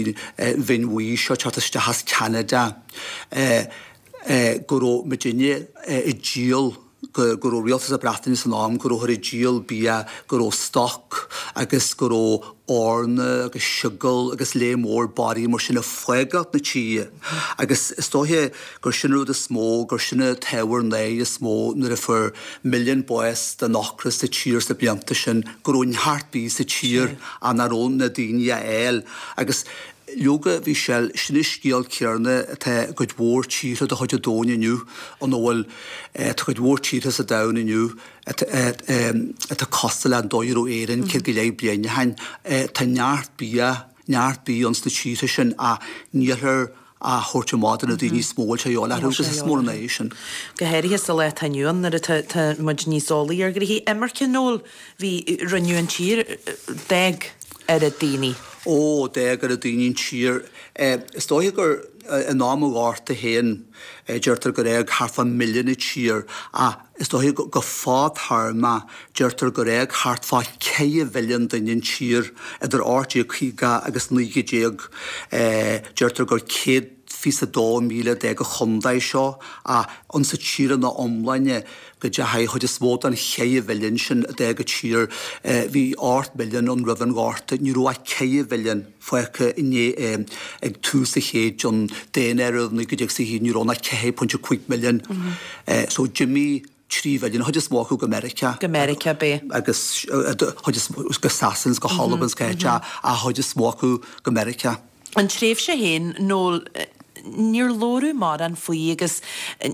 mhin bhuí seo ag teacht isteach as Ceanada, go raibh muidinne ag díol, go raibh rialtas na Breataine san am, go rabhthar ag díol bia, go raibh stoc agus go raibh eorna agus seogal agus lear mór barraí mar sin ag fágáilt na tíre agus is dóiche gur sin an rud is mó, gur sin an t-ábhar náire is mó nuair a fuair milliún bás den ocras sa tír sna blianta sin, go raibh neart bídh sa tír ach nach raibh na daoine á fháil agus leoga bhí sé, sin an scéal céarna atá i gcuid mhór tíortha de chuid an domhain inniu ina bhfuil, tá cuid mhór tíortha sa domhan inniu atá cosúil le an dóigh a raibh Éirinn 100 go leith bliain ó shin. Tá neart bia, neart bídh ann sna tíortha sin ach nílthear á thabhairt amach do na daoine is mó a bhfuil sé a dhíobháil orthu agus is mór an náire sin. Go háirithe sa lá atá inniu ann nuair atá tá muid níos eolaí ar ghnoithí imirce Noel bhí rinneadh an tír d'fhág oiread daoine. Ó, d'fhág oiread daoine an tír. Is dóiche gur in am an Ghorta féin deirtear gur fhág thart fá mhilliún an tír ach Is dóiche go fadtéarmach, deirtear gur fhág thart fá 4 mhilliún duine an tír idir 1850 agus 1919. Deirtear gur 122,000 a d'fhág an chontae seo ach ins an tír ina iomláine go dteachaigh an chuid is mó den 4 mhilliún sin a d'fhág an tír, bhí 8 milliún ann roimh an Ghorta, ní raibh ach 4 mhilliún. fágtha inné ag tús an chéid an daonáireamh 1921 ní raibh ach 4.5 milliún so d'imigh 3 mhilliún, an chuid is mó acu go Meiriceá. Go Meiriceá, b'é. Agus chuid is mó go Sasana is go hAlbain is cá háit ach an chuid is mó acu go Meiriceá. An tréimhse féin, Noel, níor labhradh mórán faoi agus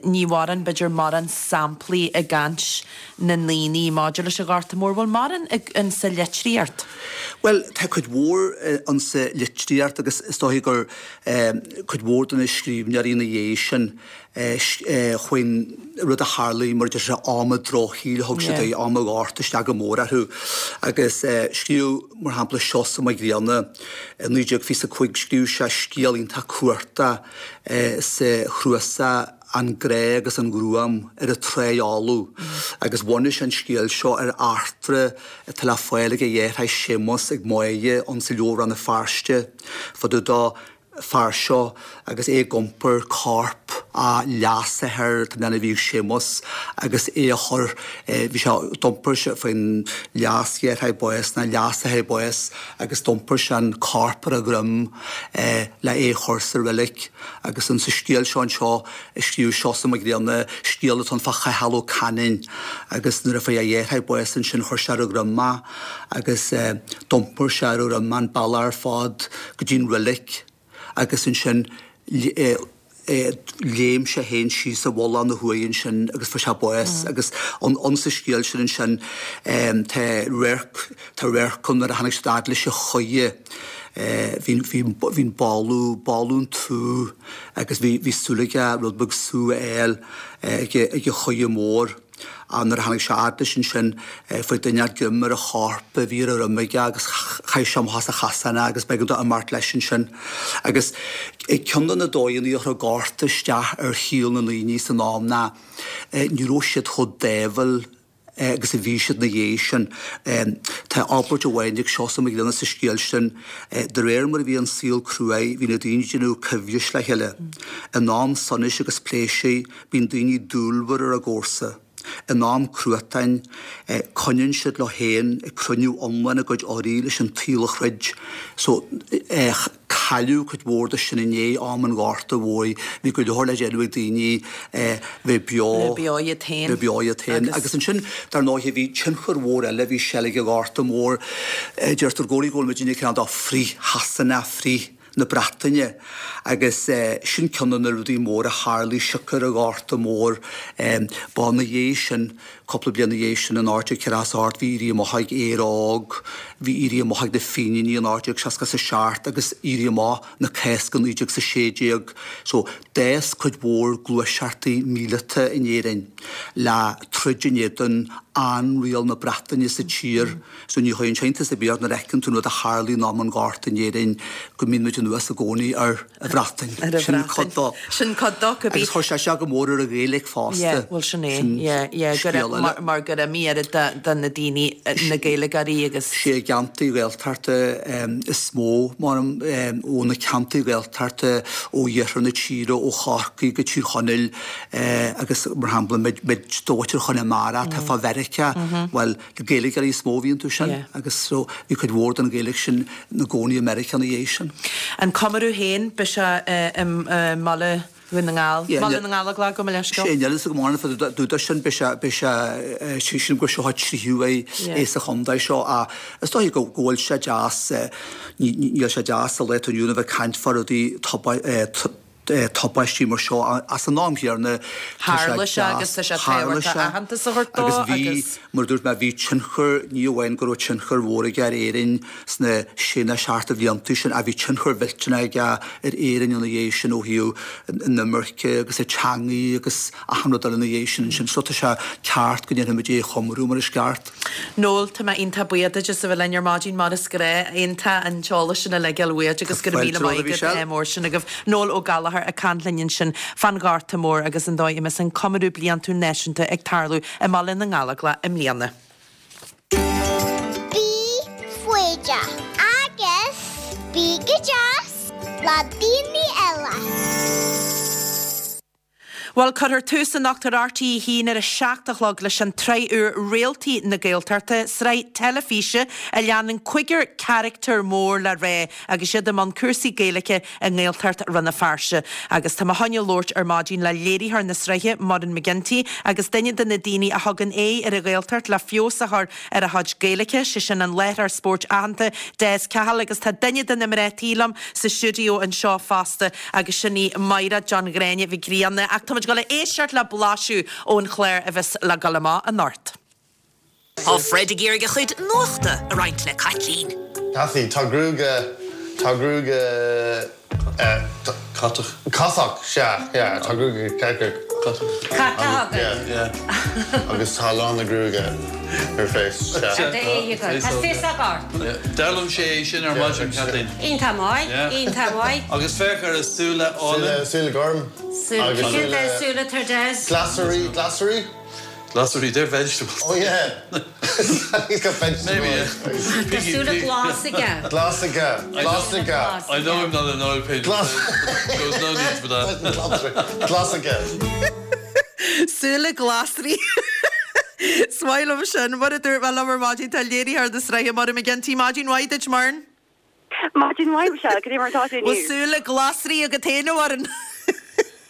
ní mhórán, b'fhéidir, mórán samplaí i gcaint na ndaoine maidir leis an Ghorta Mór. Bhfuil mórán insa litríocht? Bhuel, tá cuid mhór insa litríocht agus is dóiche gur cuid mhór de na scríbhneoirí ina dhiaidh sin faoin rud a tharlaigh mar a deir siad am an drochshaoil a thug siad é, am an Ghorta isteach go mór orthu. Agus scríobh, mar shampla, Seosamh Mac Grianna i 1925, scríobh sé scéal iontach cumhachtach sa chnuasach. An Grá agus an Ghruaim ar an Tráigh Fholamh agus bhunaigh sé an scéal seo ar eachtra atá le fáil ag a dheartháir Séamus ag Máire ann sa Leabhar Rann na Feirste fá dtaobh dó fear seo agus é ag iompar corp a leasathar tá mé a bhí ag Séamus agus é a chur bhí sé d'iompar sé faoin leasdheartháir bás ná leasathair bás agus d'iompar sé an corp ar a dhroim le é a chur sa reilig agus in sa scéal seo anseo a scríobh Seosamh Mac Grianna scéal atá ann fá Chathal Ó Canainn agus nuair a fuair a dheartháir bás ansin chuir sé ar a dhroim é agus d'iompair sé ar a dhroim an bealach ar fad go dtí an reilig agus ansin léim sé féin síos i bhfolach ina huaigh ansin agus fuair sé bás agus ann sa scéal sin ansin tá radharc tá radharc ann nuair a tháinig siad fhad leis an choire bhí bhí bhí an boladh boladh an tsú agus bhí bhí súil aige rud beag sú a fháil ag ag an choire mór. Ach nuair a tháinig sé fhad leis ansin, fuair duine inteacht greim ar an chorp a bhí ar a dhroim aige agus chaith sé amach as an chasán é agus b'éigean dó imeacht leis ansin. Agus ceann de na dóigheanna a chuir an Gorta isteach ar shaol na ndaoine san am ná ní raibh siad chomh dáimhiúil agus a bhí siad ina dhiaidh sin. Tá abairt amháin ag Seosamh Mac Grianna sa scéal sin, De réir mar a bhí an saol cruaidh, bhí na daoine ag déanamh coimhris le chéile. In am sonais agus pléisir, Bíonn daoine dúilmhar ar a gcomharsa. In am cruatáin, coinníonn siad leo féin ag cruinniú iomlán a gcuid urraí leis an tsaol a throid. So, cailleadh cuid mhór de sin i ndiaidh am an Ghorta Mhóir. Bhí go leor le déanamh ag daoine bheith beo. Bheith beo iad féin. Bheith beo iad féin. Agus ansin, dar ndóighe, bhí tionchar mhór eile, bhí seilg an Ghorta Mhóir. Deirtear i gcónaí go bhfuil muidinne cineál de frith-Shasana, frith. na Breataine agus sin ceann de na rudaí móra a tharlaigh siocair an Ghorta Mhóir. Ba ina dhiaidh sin, cúpla bliain ina dhiaidh sin in 1848 bhí Éirí Amach ag Éire Óg, bhí Éirí Amach ag na Fíníní in 1867 agus Éirí Amach na Cásca 1916. So d'fhás cuid mhór gluaiseachtaí míleata in Éirinn le troid in éadan ainriail na Breataine sa tír. So ní chuireann sé iontas ar bith ort nuair a fheiceann tú an rud a tharlaigh in am an Ghorta in Éirinn go mbíonn muid anuas i gcónaí ar an Bhreatain. Ar an Sin cuid Bhreatain. dó. Sin cuid dó, cibé. Agus chuir sé seo go mór ar an Ghaeilge fosta. Yeah, bhuel sin é. Sin Yeah, yeah, go scéal raibh, eile. mar, mar gur imigh oiread de, de na daoine, na Gaeilgeoirí agus. Sé i gceantair Ghaeltachta is mó, mar, ó na ceantair Ghaeltachta ó iarthar na tíre, ó Chorcaigh go Tír Chonaill agus mar shampla muid, muid de mhuintir Chonamara atá fá Mheiriceá, bhuel, Gaeilgeoirí is mó a bhí iontu sin agus so bhí cuid mhór den Ghaeilge sin ina gcónaí i Meiriceá ina dhiaidh sin. An comóradh féin, beidh sé i mBaile Dhún na nGall, Baile na nGallóglach, gabh mo leithscéal. Sé, níl fhios agam an fad dúdar sin, beidh sé, beidh sé, sílim gur seo an tríú é é sa chontae seo ach is dóigh go bhfuil sé deas, níl sé deas sa lá atá inniu ann a bheith ag caint fá rudaí tubaistí mar seo ach san am chéanna tá sé Tharla sé agus tá sé tharla tábhachtach sé aitheantas a thabhairt dó agus bhí, agus. mar a dúirt mé, bhí tionchar, ní amháin go raibh tionchar mhór aige ar Éirinn sna sé nó seacht de bhlianta sin ach bhí tionchar mhillteanach aige ar Éirinn ina dhiaidh sin ó thaobh an imirce agus an teangaidh agus achan rud eile ina dhiaidh sin ansin. So tá sé ceart go ndéanfaimid é a chomóradh mar is ceart. Noel, tá mé iontach buíoch duit as a bheith linn ar maidin mar is gnách. Iontach an t-eolas sin uilig a fháil uait agus go raibh míle maith agat ádh mór sin agaibh. Noel Ó Gallchóir ag caint linn ansin fán Ghorta Mór agus an dóigh a mbeas an comóradh bliantúil náisiúnta ag tarlú i mBaile na nGallóglach i mbliana. Bí foighdeach agus bí go deas le daoine eile. Bhuel, cuirfear tús anocht ar RTÉ 1 ar a 7 a chlog leis an tsraith úr Réaltaí na Gaeltachta, sraith teilifíse a leanann cúigear carachtar mór le rá agus iad i mbun cúrsaí Gaeilge i nGaeltacht Rann na Feirste. Agus tá mé chun labhairt ar maidin le léiritheoir na sraithe, Muireann McGinty, agus duine de na daoine a thugann aghaidh ar an Ghaeltacht le feabhas a chur ar a chuid Gaeilge, sé sin an láithreoir spóirt aitheanta Des Cahill agus tá duine de na mná tí liom sa stiúideo anseo fosta agus sin í Máire John Ghráinne Mhic Grianna ach táimid ag dul a éisteacht le blaiseadh ón chlár a bheas le dul amach anocht. Tá Fred ag iarraidh a chuid nuachta a roinnt le Caitlín. Cathy, Tá gruaige, tá gruaige eh, Catach. Catach, sea, yeah, tá gruaige catach. Cat atá agat. Yeah. Agus tá a lán na gruaige ar face. Ar d'aghaidh agat. Tá féasóg ort. D'fhoghlaim sé é sin ar maidin, Kathleen. Iontach maith, iontach maith. Agus féach ar a súile álainn. Súile gorm. Súile, cén dath súile atá ar Des? Glasraí, glasraí? Glasraí, they're vegetables. Oh yeah. He's got vegetables. Maybe, yeah. Tá súile glas aige. Glas aige. Glas aige. I know I'm not an oil painter. Glas. There was no need for that. Glas aige. Súile glasraí. Is maith liom sin. Mar a dúirt mé liom ar maidin, tá léiritheoir na sraithe Muireann McGinty. Maidin mhaith duit, Muireann. Maidin mhaith, Michelle, cad é mar atá tú Bhfuil inniu? súile glasraí agat féin, a Mhuireann?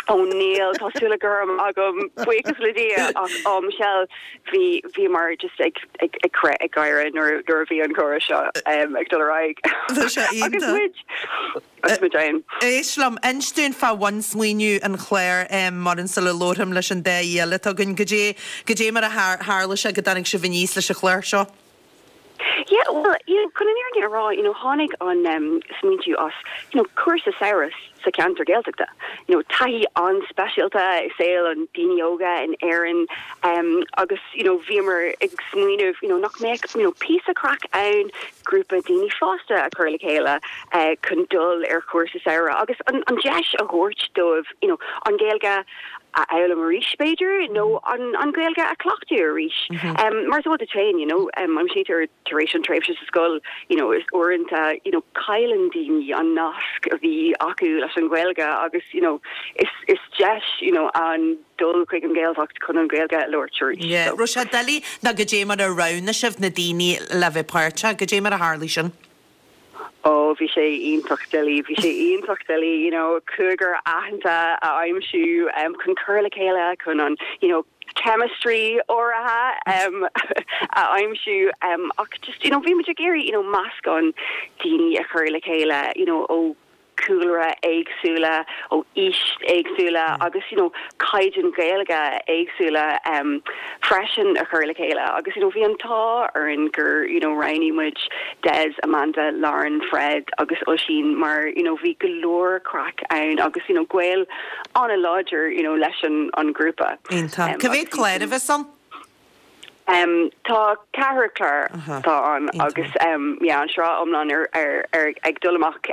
Ó níl, tá súile gorm agam, buíochas le Dia, ach ó Michelle, bhí, bhíomar just ag, ag, ag crith ag gáire nuair, nuair a bhí an comhrá seo ag dul ar aghaidh. Tá sé Agus iontach. muid, agus muid ann. Éist liom, inis dúinn fá bhunsmaoineamh an chláir, Muireann, sula labhraim leis an dá aoi eile atá againn. Goidé, goidé mar a tharla sé go dtáinig sibh aníos leis an chlár seo? Yeah, well, you know, chun an fhírinne a rá, you know, tháinig an um, smaointiú as, you know, cúrsa samhraidh sa cheantar Gaeltachta. You know, taithí an-speisialta i saol an daoine óga in Éirinn um, agus, you know, bhíomar ag smaoineamh, you know, nach mbeadh, you know, píosa craic ann grúpa daoine fásta a chur le chéile uh, chun dul ar chúrsa samhraidh agus an, an deis a thabhairt dóibh, you know, an Ghaeilge a fhoghlaim arís, b'fhéidir, nó an Ghaeilge a chleachtadh arís. Mar is eol duit féin, you know, aimsítear tar éis an tréimhse sa scoil, you know, is uaireanta, you know, cailleann daoine an nasc a bhí acu leis an Ghaeilge agus, you know, is, is deis, you know, ann dul chuig an Ghaeltacht chun an Ghaeilge a labhairt arís. Yeah. Raibh sé doiligh nó goidé mar a roghnaigh sibh na daoine le bheith páirteach, goidé mar a tharlaigh sin? Ó, bhí sé iontach doiligh, bhí sé iontach doiligh, you know, cúigear aitheanta a aimsiú chun cur le chéile, chun an, you know, chemistry áirithe a aimsiú ach just, you know, bhí muid ag iarraidh, you know, meascán daoine a chur le chéile, you know, ó cúlra éagsúla, ó aois éagsúla agus, you know, caighdeán Gaeilge éagsúla freisin a chur le chéile agus you know bhí an t-ádh orainn gur you know roghnaigh muid Des, Amanda, Lauren, Fred agus Oisín mar you know bhí go leor craic ann agus you know gaol an-láidir you know leis an an grúpa. Iontach. Cá mhéad clár a bheas ann? Tá ceathrar clár atá ann agus yeah an sraith iomlán ar ar ar ag dul amach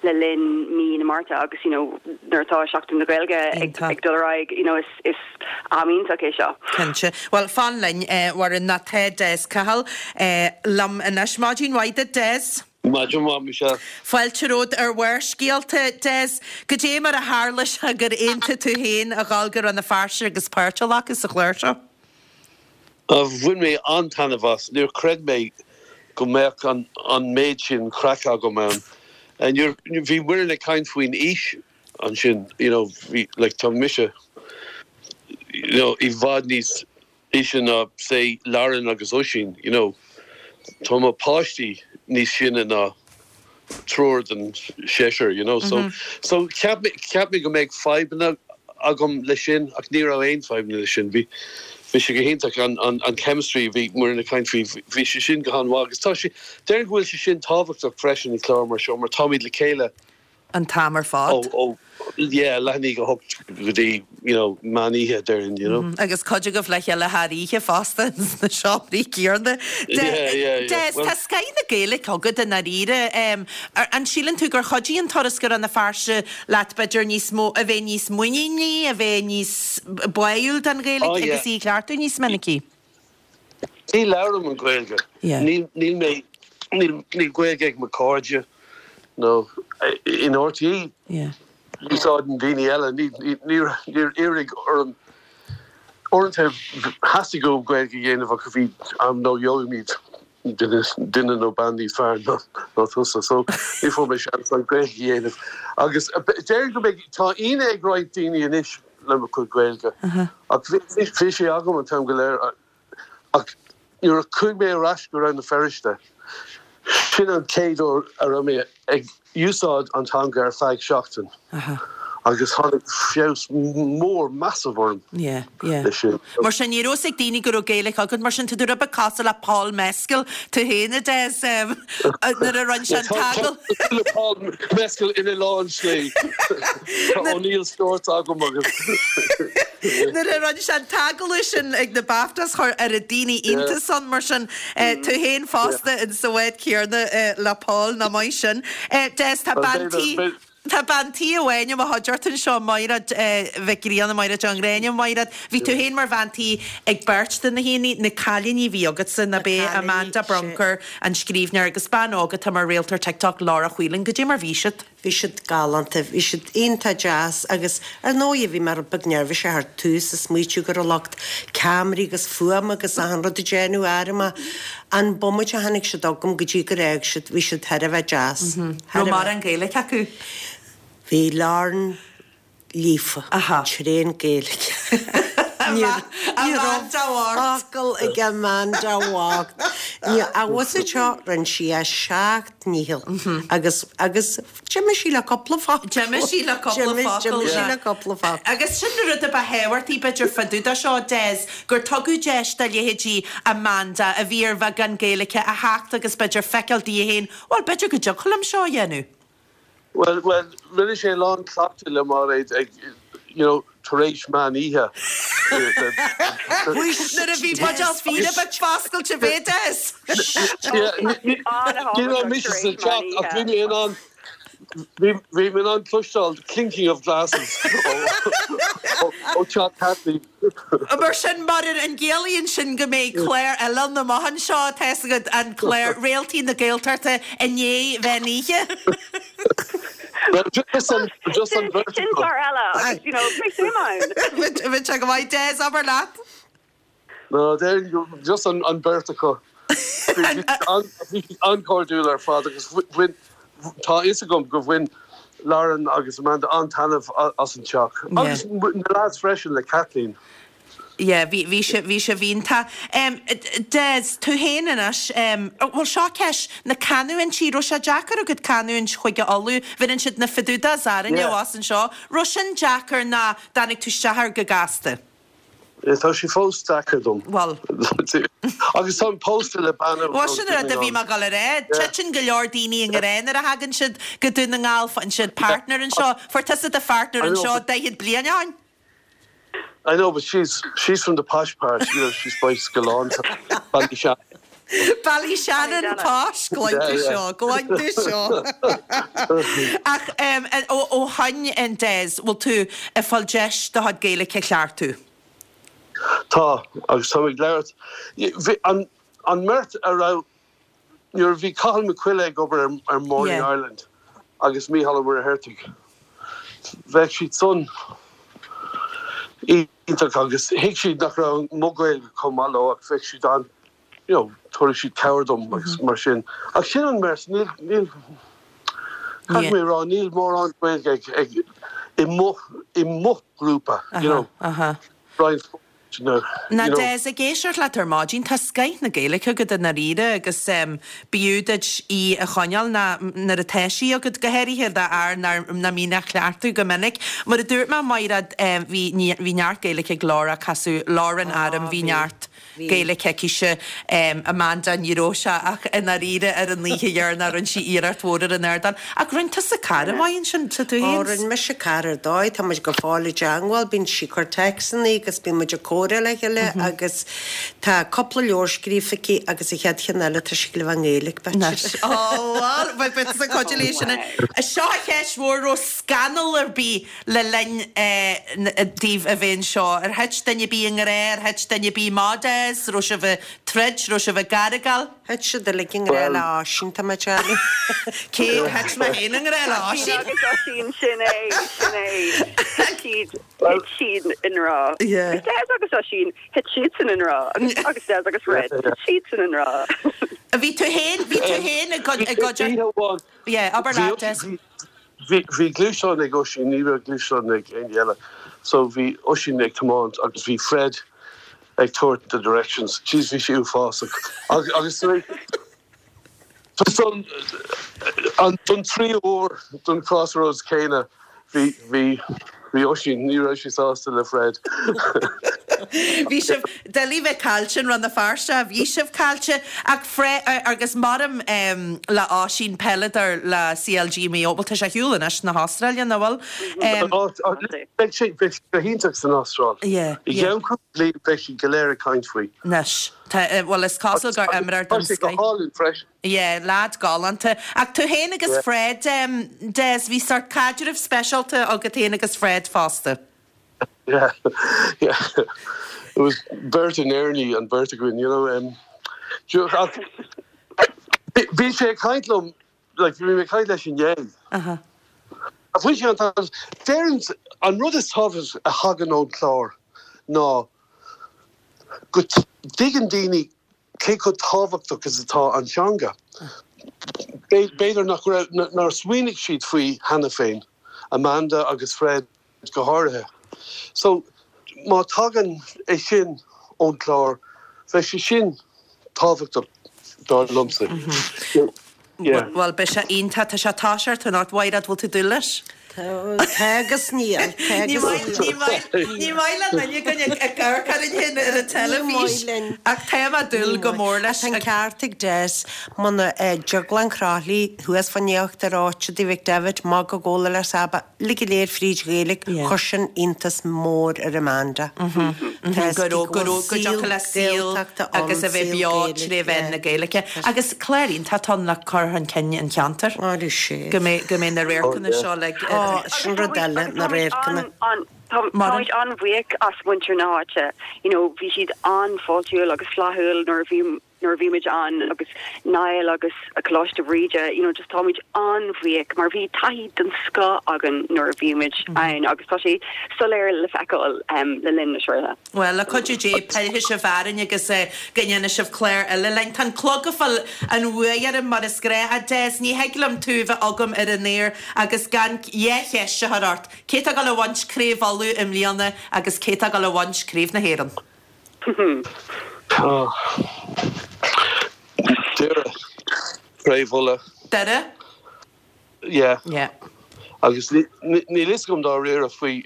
le linn mí na Márta agus you know nuair atá Seachtain na Gaeilge ag ag dul ar aghaidh you know is is am iontach é seo. Cinnte. Bhuel fan linn a Mhuireann nó tá Des Cahill liom anois. Maidin mhaith duit Des. Maidin mhaith, Michelle. Fáilte romhat ar Bharrscéalta, Des. Goidé mar a tharla sé gur aontaigh tú féin a dhul go Rann na Feirste agus páirt a ghlacadh sa chlár seo? Bhain mé an-taitneamh as. Níor chreid mé go mbeadh an méid sin craic agam ann. Bhí Muireann ag caint faoin aois ansin, you know, bhí, like, tá mise, you know, i bhfad níos aoise ná, say, Lauren agus Oisín, you know. Tá mo páistí níos sine ná triúr den seisear, you know. So, so cheap mé, cheap mé go mbeadh fadhbanna agam leis sin ach ní raibh aon fadhbanna leis sin. Bhí, bhí sé go hiontach, an, an, an chemistry a bhí Muireann ag caint faoi, bhí sé sin go han-mhaith agus tá sé, déarfainn go bhfuil sé sin tábhachtach freisin i gclár mar seo mar táimid le chéile an t-am ar fad. Ó, ó, yeah, leath i ndiaidh a hocht go dtí, you know, meán oíche, déarfainn, you know. Agus cuid agaibh le chéile thar oíche fosta sna seomraí céanna. Yeah, yeah, yeah. Des, tá scoth na Gaeilge agat i ndáiríre. An síleann tú gur chuidigh an turas go Rann na Feirste leat b'fhéidir níos mó, a bheith níos muiníní, a bheith níos báúil don Ghaeilge Oh, yeah. agus í a chleachtadh níos minicí? Ní labhraím an Ghaeilge. Níl mé, níl Gaeilge ag mo chairde nó in RTÉ. Úsáideann daoine eile. Níor iarradh orm, uaireanta theastaigh uaim Gaeilge a dhéanamh ach bhí am nó gheobhaimid duine nó bean níos fearr ná tusa. So ní fuair mé seans an Ghaeilge a dhéanamh. Agus déarfainn go mbeidh, tá ionadh ag roinnt daoine anois le mo chuid Gaeilge. Ach bhí sé agam an t-am go léir. Ach nuair a chuaigh mé ar ais go Rann na Feirste, sin an chéad uair a raibh mé ag úsáid an teanga ar feadh seachtain. Agus tháinig feabhas mór massive orm Yeah, yeah. leis sin. Mar sin, ní raibh fhios ag daoine go raibh Gaeilge agat, mar sin tá tú rud beag cosúil le Paul Mescal, tú féin, a Des, nuair a rinne sé an t-agallamh. Cosúil le Paul Mescal ina lán slí. Tá O'Neill Shorts agam agus. Nuair a rinne sé an t-agallamh sin ag na BAFTAs chuir oiread daoine iontas ann, mar sin tú féin fosta in sa bhád céarna le Paul, nach maith sin. Des, tá bean tí. Tá bean tí amháin i mo chuideachta anseo, Maighread Mhic Grianna, Maighread Ní Ghráinne. Maighread, bhí tú féin mar bhean tí ag beirt de na haíonna, na cailíní a bhí agatsa, ná b'é Amanda Brunker, an scríbhneoir, agus bean óg atá mar réalt ar TikTok, Laura Whelan. Goidé mar bhí siad? Bhí siad galánta, bhí siad iontach deas agus ar ndóigh bhí mé rud beag neirbhíseach ar tús ag smaoitiú go raibh lucht ceamaraí agus fuaim agus achan rud ag déanamh orm ach an bomaite a tháinig siad chugam go dtí gur fhág siad, bhí siad thar a bheith deas. Raibh mórán Gaeilge acu? Bhí Lauren líofa, tréan Gaeilge. Ní raibh focal ag Amanda bhocht. Abhus anseo rinne sí a seacht ndícheall agus agus d'imigh sí le cúpla focal. D'imigh sí le cúpla focal. D'imigh sí le cúpla focal. Agus sin an rud a ba thábhachtaí b'fhéidir fá dtaobh de seo, Des, gur tugadh deis do leithéidí Amanda, a bhí ar bheagán Gaeilge, a theacht agus b'fhéidir feiceáil di féin, bhuel, b'fhéidir go dtiocfadh liom seo a dhéanamh. Bhuel, bhuel, rinne sé a lán cleachtadh le Mairéad ag, you know, tar éis meán oíche. Nuair a bhí buidéal fíona beag foscailte, b'é Des. Ní raibh mise sa teach ach bhí mé in ann, bhí mé in ann cloisteáil clinking of glasses ó teach Kathleen. Mar sin, mar an gciallaíonn sin go mbeidh clár eile ann amach anseo, tá fhios agat, an clár Réaltaí na Gaeltachta i ndiaidh mheán oíche? Well, just an, just an bheirt Sin clár eile agus, you know, beidh suim ann. Bheadh sé go maith. Des, abair leat. No, déarfainn just an an bheirt acu. Bhí siad an-chairdiúil ar fad agus bhain, tá a fhios agam gur bhain Lauren agus Amanda an-taitneamh as an teach. Agus na lads freisin le Kathleen. Yeah, bhí, bhí sé, bhí sé iontach. Des, tú féin anois, bhuel seo ceist, na canúintí, raibh sé deacair agat canúint Chúige Uladh, bheireann siad na fadudas orainne abhus anseo, raibh sin deacair ná dtáinig tú isteach air go gasta? Tá sé fós deacair dom. Bhuel. Agus táim pósta le bean ó Bhuel, sin an rud a bhí mé ag dul a rá. Titeann go leor daoine i ngrá nuair a thagann siad go Dún na nGall, faigheann siad partner anseo. Fuair tusa do phartner anseo 40 bliain ó shin. I know, but she's, she's from the posh part, you know, she's by Scoláinte, Ballyshannon. Ballyshannon posh, glan tú seo, glan tú seo. Ach ó shoin, Des, bhfuil tú ag fáil deis do chuid Gaeilge a cheartú? Tá, agus táim ag labhairt. An an mbeirt a raibh, nuair a bhí Cathal Mac Coille ag obair ar Morning Ireland agus Mícheál Ó Muircheartaigh, bheadh siad san iontach agus thuig siad nach raibh mo Ghaeilge chomh maith leo ach bheadh siad an, you know, tabharfaidh siad cabhair dom agus mar sin. Ach sin an mbeirt, níl, níl, caithfidh mé a rá, níl mórán Gaeilge ag, ag, i mo, i mo ghrúpa, you know, roinnt you know. Now Des, ag éisteacht leat ar maidin, tá scoith na Gaeilge agat i ndáiríre agus b'fhiú duit í a choinneáil ná nuair atá sí agat, go háirithe d'fhear nach mbíonn á chleachtadh go minic. Mar a dúirt mé, Maighread, bhí, bhí neart Gaeilge ag Laura, casadh Lauren orm, bhí neart. Gaeilge aicise. Amanda, ní raibh sé ach i ndáiríre ar an oíche dheireanach rinne sí iarracht mhór ar an ardán. Ach rinne tusa cara maith ansin, tá tú féin. Ó, rinne mise cara ar dóigh, tá muid go fóill i dteangmháil, bíonn sí ag cur téacsanna agus bíonn muid ag comhrá le chéile agus tá cúpla leabhar scríofa aici agus an chéad cheann eile tá sí ag gabháil a bheith i nGaeilge, b'fhéidir. Ó, bhuel, beidh tusa ag cuidiú léi sin. Seo an cheist mhór, raibh scannal ar bith Le linn daoibh a bheith anseo, ar thit duine ar bith i ngrá, ar thit duine ar bith amach, Des? Raibh sibh ag troid, raibh sibh ag argáil? Thit siad uilig i ngrá le Oisín, tá mé ag déanamh. Cé thit mé féin i ngrá le Oisín? Oisín agus Oisín, sin é, sin é. Thit siad, thit siad i ngrá. Agus Des agus Oisín, thit siadsan i ngrá. Agus, agus Des agus Red, thit siadsan i ngrá. Bhí tú féin, bhí tú féin i gcuid, i gcuid, yeah, abair leat, Des. Bhí gluaisteán ag Oisín, ní raibh gluaisteán ag éinne eile. So bhí Oisín ag tiomáint agus bhí Fred ag tabhairt the directions. Jeez, bhí sé uafásach. Agus tar éis don tríú huair don crossroads céanna, Bhí, bhí, bhí Oisín, ní raibh sé sásta le Fred. Bhí sibh doiligh bheith caillte in Rann na Feirste, bhí sibh caillte ach Fred, agus maram le Oisín, peileadóir le CLG Maigh Eo, bhuel tá sé ar shiúl anois na hAstráile, nach bhfuil? Beidh sé, beidh sé go hiontach san Astráil. Yeah, I yeah. gceann cúpla bliain beidh siad go léir ag caint faoi. Anois, tá, bhuel is cosúil gur imreoir Tá den sé go scoith. hálainn freisin. Yeah, leaid galánta. Ach tú féin agus Yeah. Fred, Des, bhí sórt caidreamh speisialta agat féin agus Fred fosta. Yeah, yeah. It was beirt in Éirinn an bheirt againn, you know. Um, do- ach bhí bhí sé ag caint liom, like, bhí mé ag caint leis inné. Aha. Ach bhain sé an t-am. Deireann, an rud is tábhacht a thagann ón chlár ná go dtuigeann daoine cé chomh tábhachtach is atá an teanga. B'fhéidir nach raibh, nár smaoinigh siad faoi cheana féin, Amanda agus Fred go háirithe. So, má tagann é sin ón chlár, bheadh sé sin tábhachtach dar liomsa. Yeah. Bhuel, beidh sé iontach. Tá sé ag toiseacht anocht. Mhaighread, bhfuil tú ag dúil leis? Tá agus níl. Tá Ní agus maith, níl. ní maith, ní maith le duine againn ag ag amharc orainn féin ar an Ní teilifís. maith linn. Ach tá mé ag dúil Ní go maith. mór leis. Tá an ceart ag Des. Muna dTrioglann Chroithlí thuas fán íochtar áite Tigh McDevitt, Magadh Gabhla le Saba, uilig go léir fríd Ghaeilge, Yeah. chuir sin iontas mór ar Amanda. Tá Go raibh, go raibh, go dtiocfadh le saol Gaeltachta ann, agus a bheith saol beo Gaeilge, tré mheán yeah. na Gaeilge. Agus clár iontach atá ann le cur chun cinn an cheantair. Áireoidh sé. Go mbeidh, go mbeidh na radharcanna seo le. Ó, sin rud eile, na radharcanna. Táimid an-bhuíoch as muintir na háite. You know, bhí siad an-fháiltiúil agus flaithiúil nuair a bhí nuair a bhí muid ann agus Niall agus Coláiste Bhríde, you know, just táimid an-bhuíoch mar bhí taithí den scoth againn nuair a bhí muid ann agus tá sé soiléir le feiceáil le linn na sraithe. Bhuel, le cuidiú Dé, pillfidh sibh orainn agus go ndéanfaidh sibh clár eile linn. Tá an clog ag fáil an bhuaidh orm mar is gnách. A Des, ní thig liom tú a bheith agam ar an aer agus gan dhá cheist a chur ort. Cé tá ag dul a bhaint Craobh Uladh i mbliana agus cé tá ag dul a bhaint Craobh na hÉireann? Doire. Craobh Uladh. Doire? Yeah. Yeah. Agus níl fhios agam dáiríre faoi,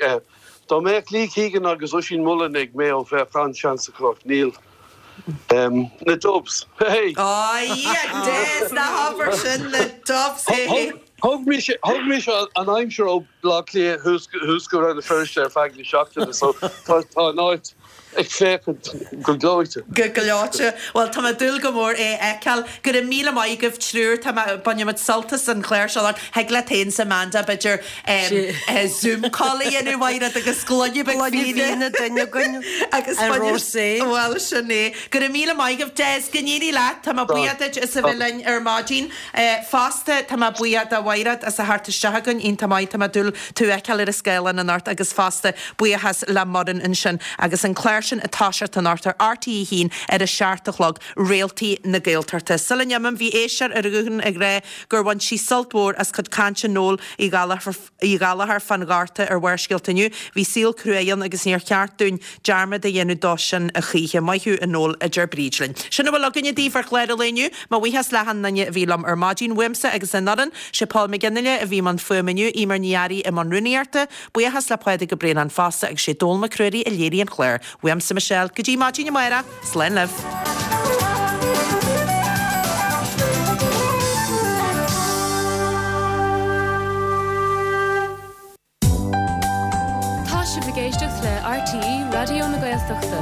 dá mbeadh Lee Keegan agus Oisín Mullin ag Mayo bheadh an-seans acu ach níl. Na Dubs. Hey! Ó yeah, Des, ná habair sin, na Dubs, hey hey. Thug mise, thug mise an aimsir ó Bhaile Átha Cliath thuas go Rann na Feirste ar feadh na seachtaine so tá an áit ag féachaint go gleoite. Go gleoite. Bhuel, tá mé ag dúil go mór é a fheiceáil. Go raibh míle maith agaibh triúr. Tá mé, bainfidh muid sult as an chlár seo. Thig leat féin 's Amanda, b'fhéidir, Zoom call a dhéanamh, Mhaighread, agus gloine beag Gloine fíona. fíona duine againn Agus ar bainfidh, rosé. bhuel, sin é. Go raibh míle maith agaibh. Des, go n-éirí leat. Tá mé buíoch duit as a bheith linn ar maidin. Fosta, tá mé buíoch do Mhaighread as a theacht isteach againn, iontach maith, tá mé ag dúil tú a fheiceáil ar an scáileán anocht agus fosta buíochas le Muireann ansin agus an clár sin ag toiseacht anocht ar RTÉ 1 ar a 7 a chlog, Réaltaí na Gaeltachta. Sula n-imím, bhí éisteoir ar an ghuthán ag rá gur bhain sí sult mhór as cuid cainte Noel Uí Ghallchóir, Uí Ghallchóir fán Ghorta ar Bharrscéalta inniu. Bhí saol cruaidh ann agus níor cheart dúinn dearmad a dhéanamh dó sin a choíche. Maith thú a Noel, a deir Bríd linn. Sin a bhfuil againne daoibh ar chlár an lae inniu. Mo bhuíochas le hachan duine a bhí liom ar maidin. Uaimse agus an fhoireann, sé Paul McGinley a bhí i mbun fuaime inniu, Eimear Ní Fhearraigh i mbun rúnaíochta. Buíochas le Pádraig Ó Braonáin fosta agus sé Dónall Mac Ruairí a léirigh an clár. Uaimse Michelle, go dtí maidin amárach, slán libh. Tá sibh ag éisteacht le RTÉ Raidió na Gaeltachta.